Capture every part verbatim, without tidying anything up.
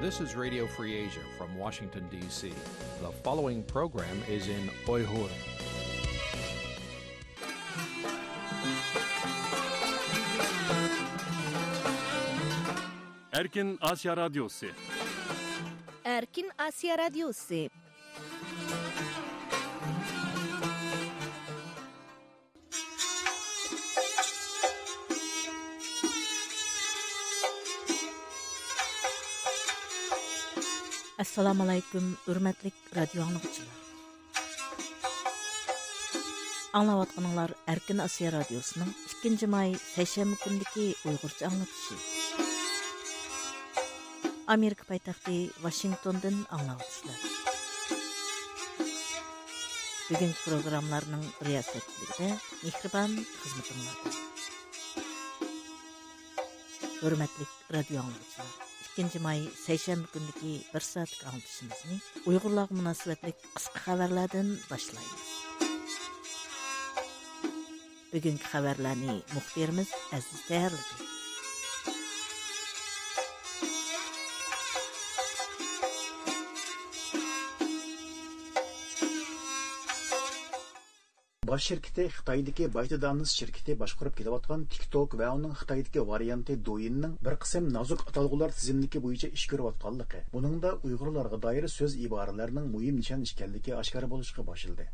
This is Radio Free Asia from Washington, D C. The following program is in Uyghur. Erkin Asya Radyosu. Erkin Asya Radyosu. ئەسسالامۇئەلەيكۇم، ھۆرمەتلىك رادىيو ئاڭلىغۇچىلار. ئاڭلاۋاتقىنىڭلار ئەركىن ئاسىيا رادىيوسىنىڭ ئىككىنچى ماي سەيشەنبە كۈنىدىكى ئۇيغۇرچە ئاڭلىتىشى. ئامېرىكا پايتەختى ۋاشىنگتوندىن ئاڭلاۋاتىسىلەر. بۈگۈنكى پروگراممىلارنىڭ رىياسەتچىلىكىدە مېھرىبان خىزمىتىڭلاردا. ھۆرمەتلىك رادىيو ئاڭلىغۇچىلار، ئىككىنچى ماي سەيشەنبە كۈنىدىكى بىر سائەتلىك ئاڭلىتىشىمىزنى ئۇيغۇرلارغا مۇناسىۋەتلىك قىسقا خەۋەرلەردىن باشلايمىز. بۈگۈنكى خەۋەرلەرنى مۇخبىرىمىز ئەزىز تەييارلىدى. باش شىركىتى خىتايدىكى بايتدانس شىركىتى باشقۇرۇپ كېلىۋاتقان تىك توك ۋە ئۇنىڭ خىتايدىكى ۋارىيانتى دويىننىڭ بىر قىسىم نازۇك ئاتالغۇلار تىزىملىكى بويىچە ئىش كۆرۈۋاتقانلىقى، بۇنىڭدا ئۇيغۇرلارغا دائىر سۆز ئىبارىلەرنىڭ مۇھىم نىشان ئىكەنلىكى ئاشكارا بولۇشقا باشلىدى.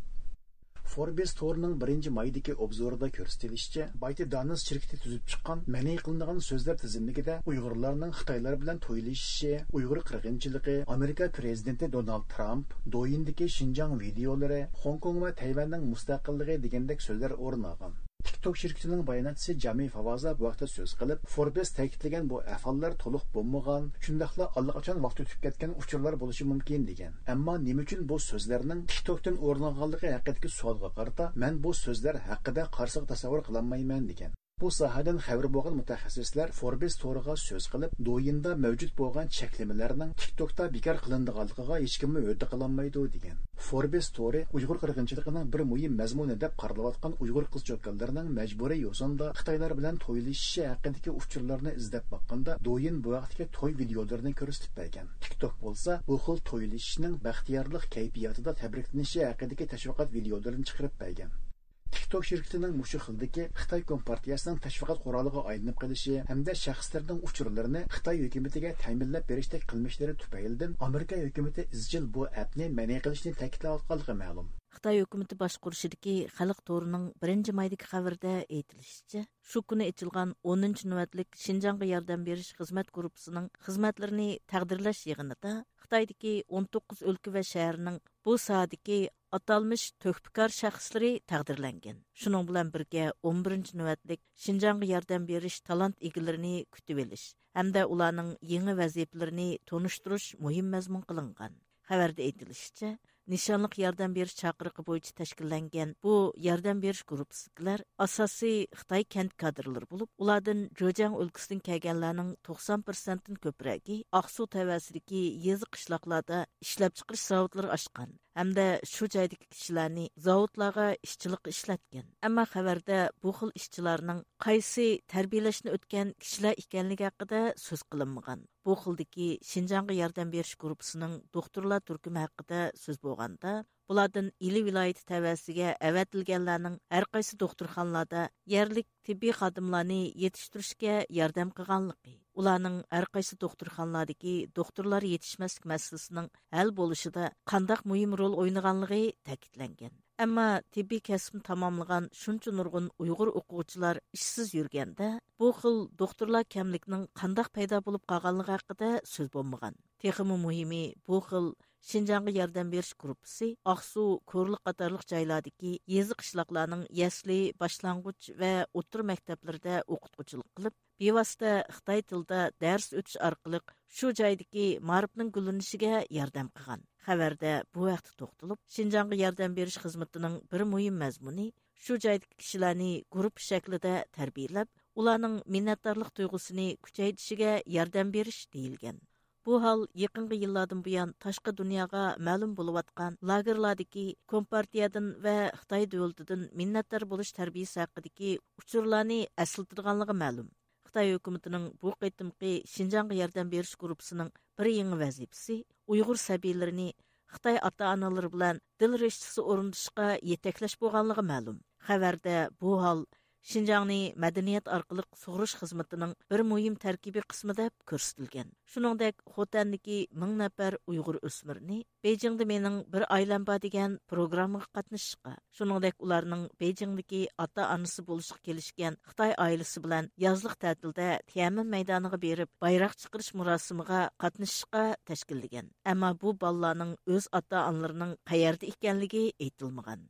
فوربس تورىنىڭ بىرىنچى مايدىكى ئوبزورىدا كۆرسىتىلىشىچە، بايتدانس شىركىتى تۈزۈپ چىققان مەنئى قىلىنغان سۆزلەر تىزىملىكىدە ئۇيغۇرلارنىڭ خىتايلار بىلەن تويلىشىشى، ئۇيغۇر قىرغىنچىلىقى، ئامېرىكا پىرېزىدېنتى دونالد ترامپ، دويىندىكى شىنجاڭ ۋىدىيولىرى، خوڭكوڭ ۋە تەيۋەننىڭ مۇستەقىللىقى دېگەندەك سۆزلەر ئورۇن ئالغان. تىك توك شىركىتىنىڭ باياناتچىسى جامى فاۋازا بۇ ھەقتە سۆز قىلىپ، فوربس تەكىتلىگەن بۇ ئەھۋاللار تولۇق بولمىغان، شۇنداقلا ئاللىقاچان ۋاقتى ئۆتۈپ كەتكەن ئۇچۇرلار بولۇشى مۇمكىن، دېگەن. ئەمما نېمە ئۈچۈن بۇ سۆزلەرنىڭ تىك توكتىن ئورۇن ئالغانلىقى ھەققىدىكى سوئالغا قارىتا، مەن بۇ سۆزلەر ھەققىدە قارىسىغا تەسەۋۋۇر قىلالمايمەن، دېگەن. بۇ ساھەدىن خەۋىرى بولغان مۇتەخەسسىسلەر فوربس تورىغا سۆز قىلىپ، دويىندا مەۋجۇت بولغان چەكلىمىلەرنىڭ تىك توكتا بىكار قىلىنىدىغانلىقىغا ھېچكىممۇ ھۆددە قىلالمايدۇ، دېگەن. فوربس تورى ئۇيغۇر قىرغىنچىلىقىنىڭ بىر مۇھىم مەزمۇنى دەپ قارىلىۋاتقان ئۇيغۇر قىز-چوكانلىرىنىڭ مەجبۇرىي يوسۇندا خىتايلار بىلەن تويلىشىشى ھەققىدىكى ئۇچۇرلارنى ئىزدەپ باققاندا، دويىن بۇ ھەقتىكى توي ۋىدىيولىرىنى كۆرسىتىپ بەرگەن. تىك توك بولسا بۇ خىل تويلىشىشنىڭ بەختىيارلىق كەيپىياتىدا تەبرىكلىنىشى ھەققىدىكى تەشۋىقات ۋىدىيولىرىنى چىقىرىپ بەرگەن. تىك توك شىركىتىنىڭ مۇشۇ خىلدىكى خىتاي كومپارتىيەسىنىڭ تەشۋىقات قورالىغا ئايلىنىپ قېلىشى ھەمدە شەخسلەرنىڭ ئۇچۇرلىرىنى خىتاي ھۆكۈمىتىگە تەمىنلەپ بېرىشتەك قىلمىشلىرى تۈپەيلىدىن ئامېرىكا ھۆكۈمىتى ئىزچىل بۇ ئەپنى مەنئى قىلىشنى تەكىتلەۋاتقانلىقى مەلۇم. خىتاي ھۆكۈمىتى باشقۇرۇشىدىكى خەلق تورىنىڭ بىرىنچى مايدىكى خەۋىرىدە ئېيتىلىشىچە، شۇ كۈنى ئېچىلغان ئونىنچى نۆۋەتلىك شىنجاڭغا ياردەم بېرىش خىزمەت گۇرۇپپىسىنىڭ خىزمەتلىرىنى تەقدىرلەش يىغىنىدا خىتايدىكى ئون توققۇز ئۆلكە ۋە شەھەرنىڭ بۇ ساھەدىكى ئاتالمىش تۆھپىكار شەخسلىرى تەقدىرلەنگەن. شۇنىڭ بىلەن بىرگە، ئون بىرىنچى نۆۋەتلىك شىنجاڭغا ياردەم بېرىش تالانت ئىگىلىرىنى كۈتۈۋېلىش ھەمدە ئۇلارنىڭ يېڭى ۋەزىپىلىرىنى تونۇشتۇرۇش مۇھىم مەزمۇن قىلىنغان. خەۋەردە ئېيتىلىشىچە، نىشانلىق ياردەم بېرىش چاقىرىقى بويىچە تەشكىللەنگەن بۇ ياردەم بېرىش گۇرۇپپىسىدىكىلەر ئاساسىي خىتاي كەنت كادىرلىرى بولۇپ، ئۇلاردىن جېجياڭ ئۆلكىسىدىن كەلگەنلەرنىڭ توقسان پىرسەنتتىن كۆپرەكى ئاقسۇ تەۋەسىدىكى يېزا، قىشلاقلاردا ئىشلەپچىقىرىش زاۋۇتلىرى ئاچقان ھەمدە شۇ جايدىكى كىشىلەرنى زاۋۇتلارغا ئىشچىلىققا ئىشلەتكەن. ئەمما خەۋەردە بۇ خىل ئىشچىلارنىڭ قايسى تەربىيەلەشنى ئۆتكەن كىشىلەر ئىكەنلىكى ھەققىدە سۆز قىلىنمىغان. بۇ خىلدىكى شىنجاڭغا ياردەم بېرىش گۇرۇپپىسىنىڭ دوختۇرلار تۈركۈمى ھەققىدە سۆز بولغاندا، بۇلاردىن ئىلى ۋىلايىتى تەۋەسىگە ئەۋەتىلگەنلەرنىڭ ھەرقايسى دوختۇرخانىلاردا يەرلىك تېببىي خادىملارنى يېتىشتۈرۈشكە ياردەم قىلغانلىقى، ئۇلارنىڭ ھەرقايسى دوختۇرخانىلاردىكى دوختۇرلار يېتىشمەسلىك مەسىلىسىنىڭ ھەل بولۇشىدا قانداق مۇھىم رول ئوينىغانلىقى تەكىتلەنگەن. ئەمما تېببىي كەسىپنى تاماملىغان شۇنچە نۇرغۇن ئۇيغۇر ئوقۇغۇچىلار ئىشسىز يۈرگەندە، بۇ خىل دوختۇرلار كەملىكىنىڭ قانداق پەيدا بولۇپ قالغانلىقى ھەققىدە سۆز بولمىغان. تېخىمۇ مۇھىمى، بۇ خىل شىنجاڭغا ياردەم بېرىش گۇرۇپپىسى ئاقسۇ، كورلۇق قاتارلىق جايلاردىكى يېزا، قىشلاقلارنىڭ يەسلى، باشلانغۇچ ۋە ئوتتۇرا مەكتەپلىرىدە ئوقۇتقۇچىلىق قىلىپ، بىۋاسىتە خىتاي تىلىدا دەرس ئۆتۈش ئارقىلىق شۇ جايدىكى مائارىپنىڭ گۈللىنىشىگە ياردەم قىلغان. خەۋەردە بۇ ھەقتە توختىلىپ، شىنجاڭغا ياردەم بېرىش خىزمىتىنىڭ بىر مۇھىم مەزمۇنى شۇ جايدىكى كىشىلەرنى گۇرۇپپا شەكلىدە تەربىيەلەپ، ئۇلارنىڭ مىننەتدارلىق تۇيغۇسىنى كۈچەيتىشىگە ياردەم بېرىش دېيىلگەن. بۇ ھال يېقىنقى يىللاردىن بۇيان تاشقى دۇنياغا مەلۇم بولۇۋاتقان لاگېرلاردىكى كومپارتىيەدىن ۋە خىتاي دۆلىتىدىن مىننەتدار بولۇش تەربىيىسى ھەققىدىكى ئۇچۇرلارنى ئەسلىتىدىغانلىقى مەلۇم. خىتاي ھۆكۈمىتىنىڭ بۇ قېتىمقى شىنجاڭغا ياردەم بېرىش گۇرۇپپىسىنىڭ بىر يېڭى ۋەزىپىسى ئۇيغۇر سەبىيلىرىنى خىتاي ئاتا-ئانىلىرى بىلەن دىل رىشتىسى ئورنىتىشقا يېتەكلەش بولغانلىقى مەلۇم. خەۋەردە بۇ ھال شىنجاڭنى مەدەنىيەت ئارقىلىق سۇغۇرۇش خىزمىتىنىڭ بىر مۇھىم تەركىبىي قىسمى دەپ كۆرسىتىلگەن. شۇنىڭدەك، خوتەندىكى مىڭ نەپەر ئۇيغۇر ئۆسمۈرىنى بېيجىڭدا مېنىڭ بىر ئائىلەم بار دېگەن پروگراممىغا قاتنىشىشقا، شۇنىڭدەك ئۇلارنىڭ بېيجىڭدىكى ئاتا-ئانىسى بولۇشقا كېلىشكەن خىتاي ئائىلىسى بىلەن يازلىق تەتىلدە تيەنئەنمېن مەيدانىغا بېرىپ بايراق چىقىرىش مۇراسىمىغا قاتنىشىشقا تەشكىللىگەن. ئەمما بۇ بالىلارنىڭ ئۆز ئاتا-ئانىلىرىنىڭ قەيەردە ئىكەنلىكى ئېيتىلمىغان.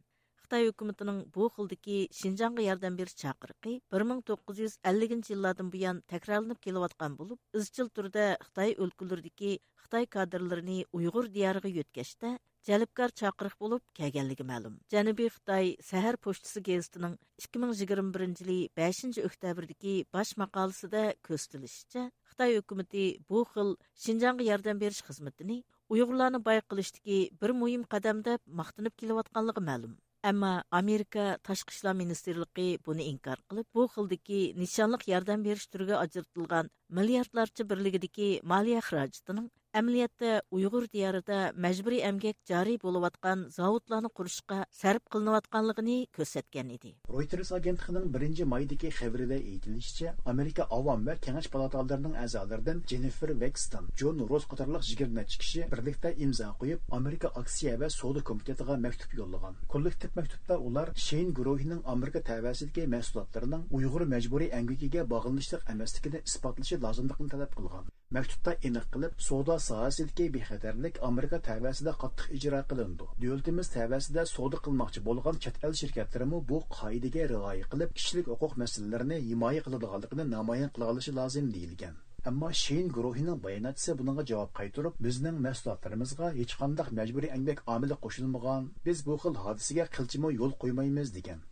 خىتاي ھۆكۈمىتىنىڭ بۇ خىلدىكى شىنجاڭغا ياردەم بېرىش چاقىرىقى بىر مىڭ توققۇز يۈز ئەللىكىنچى يىللاردىن بۇيان تەكرارلىنىپ كېلىۋاتقان بولۇپ، ئىزچىل تۈردە خىتاي ئۆلكىلىرىدىكى خىتاي كادىرلىرىنى ئۇيغۇر دىيارىغا يۆتكەشتە جەلپكار چاقىرىق بولۇپ كەلگەنلىكى مەلۇم. جەنۇبىي خىتاي سەھەر پوچتىسى گېزىتىنىڭ ئىككى مىڭ يىگىرمە بىرىنچى يىلى بەشىنچى ئۆكتەبىردىكى باش ماقالىسىدە كۆرسىتىلىشىچە، خىتاي ھۆكۈمىتى بۇ خىل شىنجاڭغا ياردەم بېرىش خىزمىتىنى ئۇيغۇرلارنى باي قىلىشتىكى بىر مۇھىم قەدەم دەپ ماختىنىپ كېلىۋاتقانلىقى مەلۇم. ئەمما ئامېرىكا تاشقى ئىشلار مىنىستىرلىقى بۇنى ئىنكار قىلىپ، بۇ خىلدىكى نىشانلىق ياردەم بېرىش تۈرىگە ئاجرىتىلغان مىلياردلارچە بىرلىكىدىكى مالىيە خىراجىتىنىڭ ئەمەلىيەتتە ئۇيغۇر دىيارىدا مەجبۇرىي ئەمگەك جارى بولۇۋاتقان زاۋۇتلارنى قۇرۇشقا سەرپ قىلىنىۋاتقانلىقىنى كۆرسەتكەن ئىدى. رويتېرس ئاگېنتلىقىنىڭ بىرىنچى مايدىكى خەۋىرىدە ئېيتىلىشىچە، ئامېرىكا ئاۋام ۋە كېڭەش پالاتالىرىنىڭ ئەزالىرىدىن جېننىفېر ۋېكستون، جون روس قاتارلىق يىگىرمە نەچچە كىشى بىرلىكتە ئىمزا قويۇپ، ئامېرىكا ئاكسىيە ۋە سودا كومىتېتىغا مەكتۇپ يوللىغان. كوللېكتىپ مەكتۇپتا ئۇلار شېيىن گۇرۇھىنىڭ ئامېرىكا تەۋەسىدىكى مەھسۇلاتلىرىنىڭ ئۇيغۇر مەجبۇرىي ئەمگىكىگە باغلىنىشلىق ئەمەسلىكىنى ئىسپاتلىشى لازىملىقىنى تەلەپ قىلغان. مەكتۇپتا ئېنىق قىلىپ، سودا ساھەسىدىكى بىخەتەرلىك ئامېرىكا تەۋەسىدە قاتتىق ئىجرا قىلىنىدۇ. دۆلىتىمىز تەۋەسىدە سودا قىلماقچى بولغان چەت ئەل شىركەتلىرىمۇ بۇ قائىدىگە رىئايە قىلىپ، كىشىلىك ھوقۇق مەسىلىلىرىنى ھىمايە قىلىدىغانلىقىنى نامايان قىلالىشى لازىم، دېيىلگەن. ئەمما شېيىن گۇرۇھىنىڭ باياناتچىسى بۇنىڭغا جاۋاب قايتۇرۇپ، بىزنىڭ مەھسۇلاتلىرىمىزغا ھېچقانداق مەجبۇرىي ئەمگەك ئامىلى قوشۇلمىغان، بىز بۇ خىل ھادىسىگە قىلچىمۇ يول قويمايمىز، دېگەن.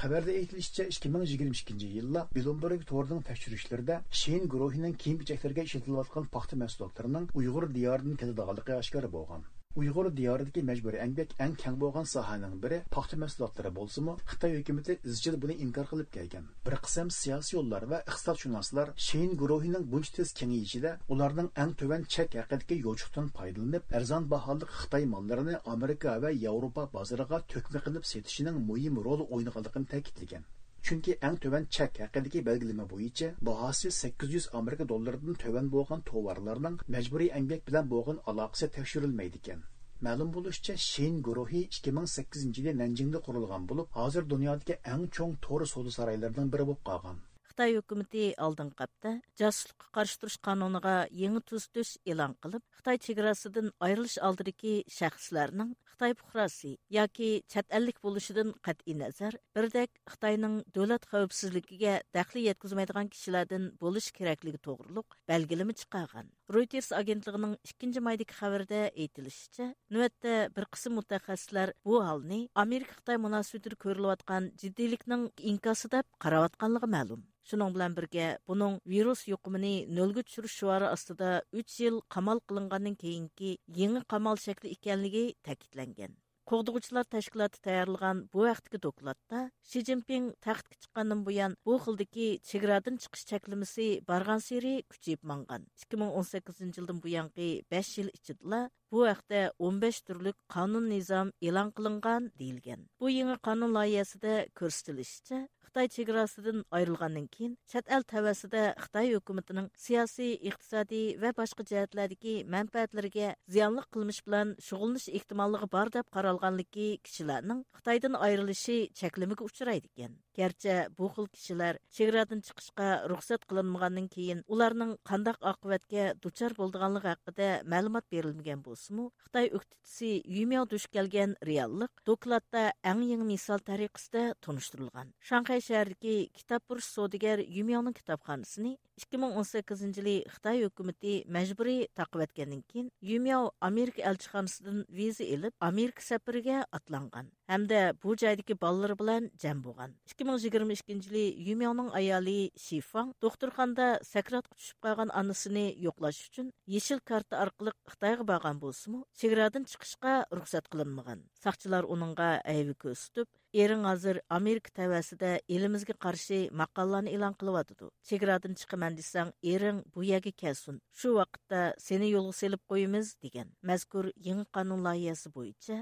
خەۋەردە ئېيتىلىشىچە، ئىككى مىڭ يىگىرمە ئىككىنچى يىللا بلومبېرگ تورىنىڭ تەكشۈرۈشلىرىدە شېيىن گۇرۇھىنىڭ كىيىم-كېچەكلىرىگە ئىشلىتىلىۋاتقان پاختا مەھسۇلاتلىرىنىڭ ئۇيغۇر دىيارىدىن كېلىدىغانلىقى ئاشكارا بولغان. ئۇيغۇر دىيارىدىكى مەجبۇرىي ئەمگەك ئەڭ كەڭ بولغان ساھەنىڭ بىرى پاختا مەھسۇلاتلىرى بولسىمۇ، خىتاي ھۆكۈمىتى ئىزچىل بۇنى ئىنكار قىلىپ كەلگەن. بىر قىسىم سىياسىيونلار ۋە ئىقتىسادشۇناسلار شېيىن گۇرۇھىنىڭ بۇنچە تېز كېڭىيىشىدە ئۇلارنىڭ ئەڭ تۆۋەن چەك ھەققىدىكى يوچۇقتىن پايدىلىنىپ، ئەرزان باھالىق خىتاي ماللىرىنى ئامېرىكا ۋە ياۋروپا بازىرىغا تۆكمە قىلىپ سېتىشىنىڭ مۇھىم رول ئوينىغانلىقىنى تەكىتلىگەن. چۈنكى ئەڭ تۆۋەن چەك ھەققىدىكى بەلگىلىمە بويىچە باھاسى سەككىز يۈز ئامېرىكا دوللىرىدىن تۆۋەن بولغان توۋارلارنىڭ مەجبۇرىي ئەمگەك بىلەن بولغان ئالاقىسى تەكشۈرۈلمەيدىكەن. مەلۇم بولۇشىچە، شېيىن گۇرۇھى ئىككى مىڭ سەككىزىنچى يىلى نەنجىڭدە قۇرۇلغان بولۇپ، ھازىر دۇنيادىكى ئەڭ چوڭ تور سودا سارايلىرىنىڭ بىرى بولۇپ قالغان. خىتاي ھۆكۈمىتى ئالدىنقى ھەپتە جاسۇسلۇققا قارشى تۇرۇش قانۇنىغا يېڭى تۈزىتىش ئېلان قىلىپ، خىتاي چېگراسىدىن ئايرىلىش ئالدىدىكى شەخسلەرنىڭ خىتاي پۇقراسى ياكى چەت ئەللىك بولۇشىدىن قەتئىينەزەر، بىردەك خىتاينىڭ دۆلەت خەۋپسىزلىكىگە دەخلى يەتكۈزمەيدىغان كىشىلەردىن بولۇشى كېرەكلىكى توغرۇلۇق بەلگىلىمە چىقارغان. رويتېرس ئاگېنتلىقىنىڭ ئىككىنچى مايدىكى خەۋىرىدە ئېيتىلىشىچە، نۆۋەتتە بىر قىسىم مۇتەخەسسىسلەر بۇ ھالنى ئامېرىكا-خىتاي مۇناسىۋىتىدە كۆرۈلۈۋاتقان جىددىيلىكنىڭ ئىنكاسى دەپ قاراۋاتقانلىقى مەلۇم. شۇنىڭ بىلەن بىرگە، بۇنىڭ ۋىرۇس يۇقۇمىنى نۆلگە چۈشۈرۈش شوئارى ئاستىدا ئۈچ يىل قامال قىلىنغاندىن كېيىنكى يېڭى قامال شەكلى ئىكەنلىكى تەكىتلەنگەن. قوغدىغۇچىلار تەشكىلاتى تەييارلىغان بۇ ھەقتىكى دوكلاتتا، شى جىنپىڭ تەختكە چىققاندىن بۇيان، بۇ خىلدىكى چېگرادىن چىقىش چەكلىمىسى بارغانسېرى كۈچىيىپ ماڭغان. ئىككى مىڭ ئون سەككىزىنچى يىلدىن بۇيانقى بەش يىل ئىچىدىلا بۇ ھەقتە ئون بەش تۈرلۈك قانۇن نىزام ئېلان قىلىنغان، دېيىلگەن. بۇ يېڭى قانۇن لايىھەسىدە كۆرسىتىلىشىچە، خىتاي چېگراسىدىن ئايرىلغاندىن كېيىن، چەت ئەل تەۋەسىدە خىتاي ھۆكۈمىتىنىڭ سىياسىي، ئىقتىسادىي ۋە باشقا جەھەتلەردىكى مەنپەئەتلىرىگە زىيانلىق قىلمىش بىلەن شۇغۇللىنىش ئېھتىماللىقى بار دەپ قارالغانلىكى كىشىلەرنىڭ خىتايدىن ئايرىلىشى چەكلىمىگە ئۇچرايدىكەن. گەرچە بۇ خىل كىشىلەر چېگرادىن چىقىشقا رۇخسەت قىلىنمىغاندىن كېيىن، ئۇلارنىڭ قانداق ئاقىۋەتكە دۇچار بولىدىغانلىقى ھەققىدە مەلۇمات بېرىلمىگەن بولسىمۇ، خىتاي ئۆكتىچىسى يۈمياۋ دۇچ كەلگەن رېئاللىق دوكلاتتا ئەڭ يېڭى مىسال تەرىقىسىدە تونۇشتۇرۇلغان. شاڭخەي شەھىرىدىكى كىتابپۇرۇش سودىگەر يۈمياۋنىڭ كىتابخانىسىنى ئىككى مىڭ ئون سەككىزىنچى يىلى خىتاي ھۆكۈمىتى مەجبۇرىي تاقىۋەتكەندىن كېيىن، يۈمياۋ ئامېرىكا ئەلچىخانىسىدىن ۋىزا ئېلىپ، ئامېرىكا سەپىرىگە ئاتلانغان ھەمدە بۇ جايدىكى بالىلىرى بىلەن جەم بولغان. ئىككى مىڭ يىگىرمە ئىككىنچى يىلى يۈمياۋنىڭ ئايالى شىفاڭ دوختۇرخانىدا سەكراتقا چۈشۈپ قالغان ئانىسىنى يوقلاش ئۈچۈن يېشىل كارتا ئارقىلىق خىتايغا بارغان بولسىمۇ، چېگرادىن چىقىشقا رۇخسەت قىلىنمىغان. ساقچىلار ئۇنىڭغا ھەيۋە كۆرسىتىپ، ئېرىڭ ھازىر ئامېرىكا تەۋەسىدە ئېلىمىزگە قارشى ماقالىلارنى ئېلان قىلىۋاتىدۇ. چېگرادىن چىقىمەن دېسەڭ، ئېرىڭ بۇ يەرگە كەلسۇن. شۇ ۋاقىتتا سېنى يولغا سېلىپ قويىمىز، دېگەن. مەزكۇر يېڭى قانۇن لايىھەسى بويىچە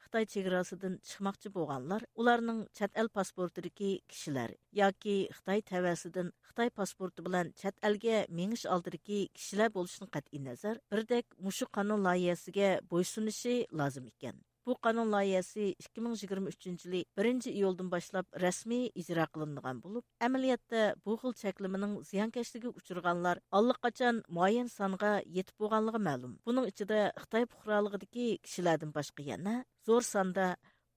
خىتاي چېگراسىدىن چىقماقچى بولغانلار، ئۇلارنىڭ چەت ئەل پاسپورتىدىكى كىشىلەر ياكى خىتاي تەۋەسىدىن خىتاي پاسپورتى بىلەن چەت ئەلگە مېڭىش ئالدىدىكى كىشىلەر بولۇشىدىن قەتئىينەزەر، بىردەك مۇشۇ قانۇن لايىھەسىگە بويسۇنۇشى لازىم ئىكەن. بۇ قانۇن لايىھەسى ئىككى مىڭ يىگىرمە ئۈچىنچى يىلى بىرىنچى ئىيۇلدىن باشلاپ رەسمىي ئىجرا قىلىنىدىغان بولۇپ، ئەمەلىيەتتە بۇ خىل چەكلىمىنىڭ زىيانكەشلىكىگە ئۇچرىغانلار ئاللىقاچان مۇئەييەن سانغا يېتىپ بولغانلىقى مەلۇم. بۇنىڭ ئىچىدە خىتاي پۇقرالىقىدىكى كىشىلەردىن باشقا يەنە زور ساندا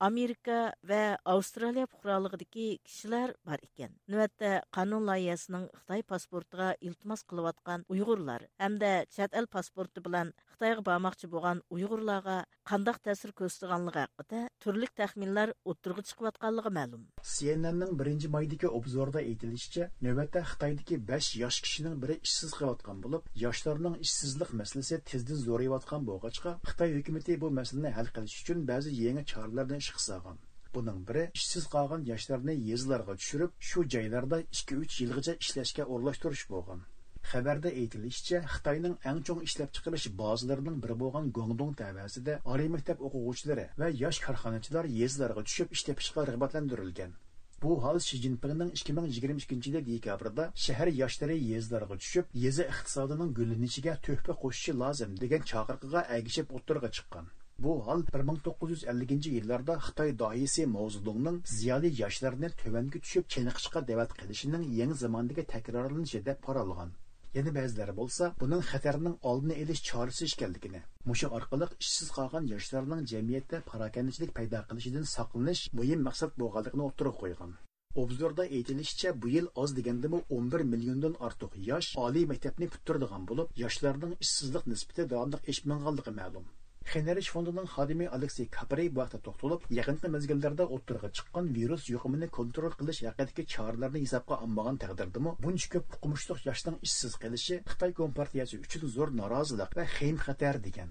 ئامېرىكا ۋە ئاۋسترالىيە پۇقرالىقىدىكى كىشىلەر بار ئىكەن. نۆۋەتتە قانۇن لايىھەسىنىڭ خىتاي پاسپورتىغا ئىلتىماس قىلىۋاتقان ئۇيغۇرلار ھەمدە چەت ئەل پاسپورتى بىلەن خىتايغا بارماقچى بولغان ئۇيغۇرلارغا قانداق تەسىر كۆرسىتىدىغانلىقى ھەققىدە تۈرلۈك تەخمىنلەر ئوتتۇرىغا چىقىۋاتقانلىقى مەلۇم. سىئېنئېننىڭ بىرىنچى مايدىكى ئوبزورىدا ئېيتىلىشىچە، نۆۋەتتە خىتايدىكى بەش ياش كىشىنىڭ بىرى ئىشسىز قېلىۋاتقان بولۇپ، ياشلارنىڭ ئىشسىزلىق مەسىلىسى تېزدىن زورىيىۋاتقان بولغاچقا، خىتاي ھۆكۈمىتى بۇ مەسىلىنى ھەل قىلىش ئۈچۈن بەزى يېڭى چارىلەرنى ئىشقا سالغان. بۇنىڭ بىرى ئىشسىز قالغان ياشلارنى يېزىلارغا چۈشۈرۈپ، شۇ جايلاردا ئىككى ئۈچ يىلغىچە ئىشلەشكە ئورۇنلاشتۇرۇش بولغان. خەۋەردە ئېيتىلىشىچە، خىتاينىڭ ئەڭ چوڭ ئىشلەپچىقىرىش بازىلىرىنىڭ بىرى بولغان گۇاڭدۇڭ تەۋەسىدە ئالىي مەكتەپ ئوقۇغۇچىلىرى ۋە ياش كارخانىچىلار يېزىلارغا چۈشۈپ ئىش تېپىشقا رىغبەتلەندۈرۈلگەن. بۇ ھال شى جىنپىڭنىڭ ئىككى مىڭ يىگىرمە ئىككىنچى يىلى دېكابىردا شەھەر ياشلىرى يېزىلارغا چۈشۈپ، يېزا ئىقتىسادىنىڭ گۈللىنىشىگە تۆھپە قوشۇشى لازىم دېگەن چاقىرىقىغا ئەگىشىپ ئوتتۇرىغا چىققان. بۇ ھال بىر مىڭ توققۇز يۈز ئەللىكىنچى يىللاردا خىتاي داھىيسى ماۋزېدۇڭنىڭ زىيالىي ياشلارنى تۆۋەنگە چۈشۈپ چېنىقىشقا دەۋەت قىلىشىنىڭ يېڭى زاماندىكى تەكرارلىنىشى دەپ قارالغان. يەنە بەزىلەر بولسا بۇنىڭ خەتەرنىڭ ئالدىنى ئېلىش چارىسى ئىكەنلىكىنى، مۇشۇ ئارقىلىق ئىشسىز قالغان ياشلارنىڭ جەمئىيەتتە پاراكەندىچىلىك پەيدا قىلىشىدىن ساقلىنىش مۇھىم مەقسەت بولغانلىقىنى ئوتتۇرىغا قويغان. ئوبزوردا ئېيتىلىشىچە، بۇ يىل ئاز دېگەندىمۇ ئون بىر مىليوندىن ئارتۇق ياش ئالىي مەكتەپنى پۈتتۈرىدىغان بولۇپ، ياشلارنىڭ ئىشسىزلىق نىسبىتى داۋاملىق ئېشىپ ماڭغانلىقى مەلۇم. خېنرىچ فوندىنىڭ خادىمى ئالېكسېي كاپرى بۇ ھەقتە توختىلىپ، يېقىنقى مەزگىللەردە ئوتتۇرىغا چىققان ۋىرۇس يۇقۇمىنى كونترول قىلىش ھەققىدىكى چارىلەرنى ھېسابقا ئالمىغان تەقدىردىمۇ، بۇنچە كۆپ ئوقۇمۇشلۇق ياشنىڭ ئىشسىز قېلىشى خىتاي كومپارتىيەسى ئۈچۈن زور نارازىلىق ۋە خېيىم خەتەر، دېگەن.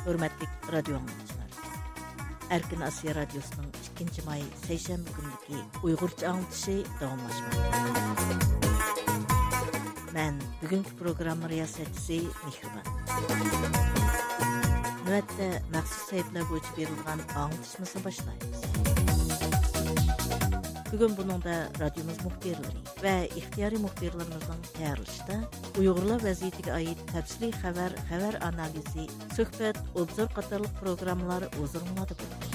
ھۆرمەتلىك رادىيو ئاڭلىغۇچىلار! ئەركىن ئاسىيا رادىيوسىنىڭ ئىككىنچى ماي سەيشەنبە كۈنلۈكى ئۇيغۇرچە ئاڭلىتىشى داۋاملاشماقتا. مەن بۈگۈنكى پروگرامما رىياسەتچىسى مېھرىبان. نۆۋەتتە مەخسۇس سەھىپىلەر بويىچە بېرىلىدىغان ئاڭلىتىشىمىزنى باشلايمىز. بۈگۈن بۇنىڭدا رادىيومىز مۇخبىرلىرى ۋە ئىختىيارىي مۇخبىرلىرىمىزنىڭ تەييارلىشىدا ئۇيغۇرلار ۋەزىيىتىگە ئائىت تەپسىلىي خەۋەر، خەۋەر ئانالىزى، سۆھبەت، ئوبزور قاتارلىق پروگراممىلار ھۇزۇرۇڭلاردا بولىدۇ.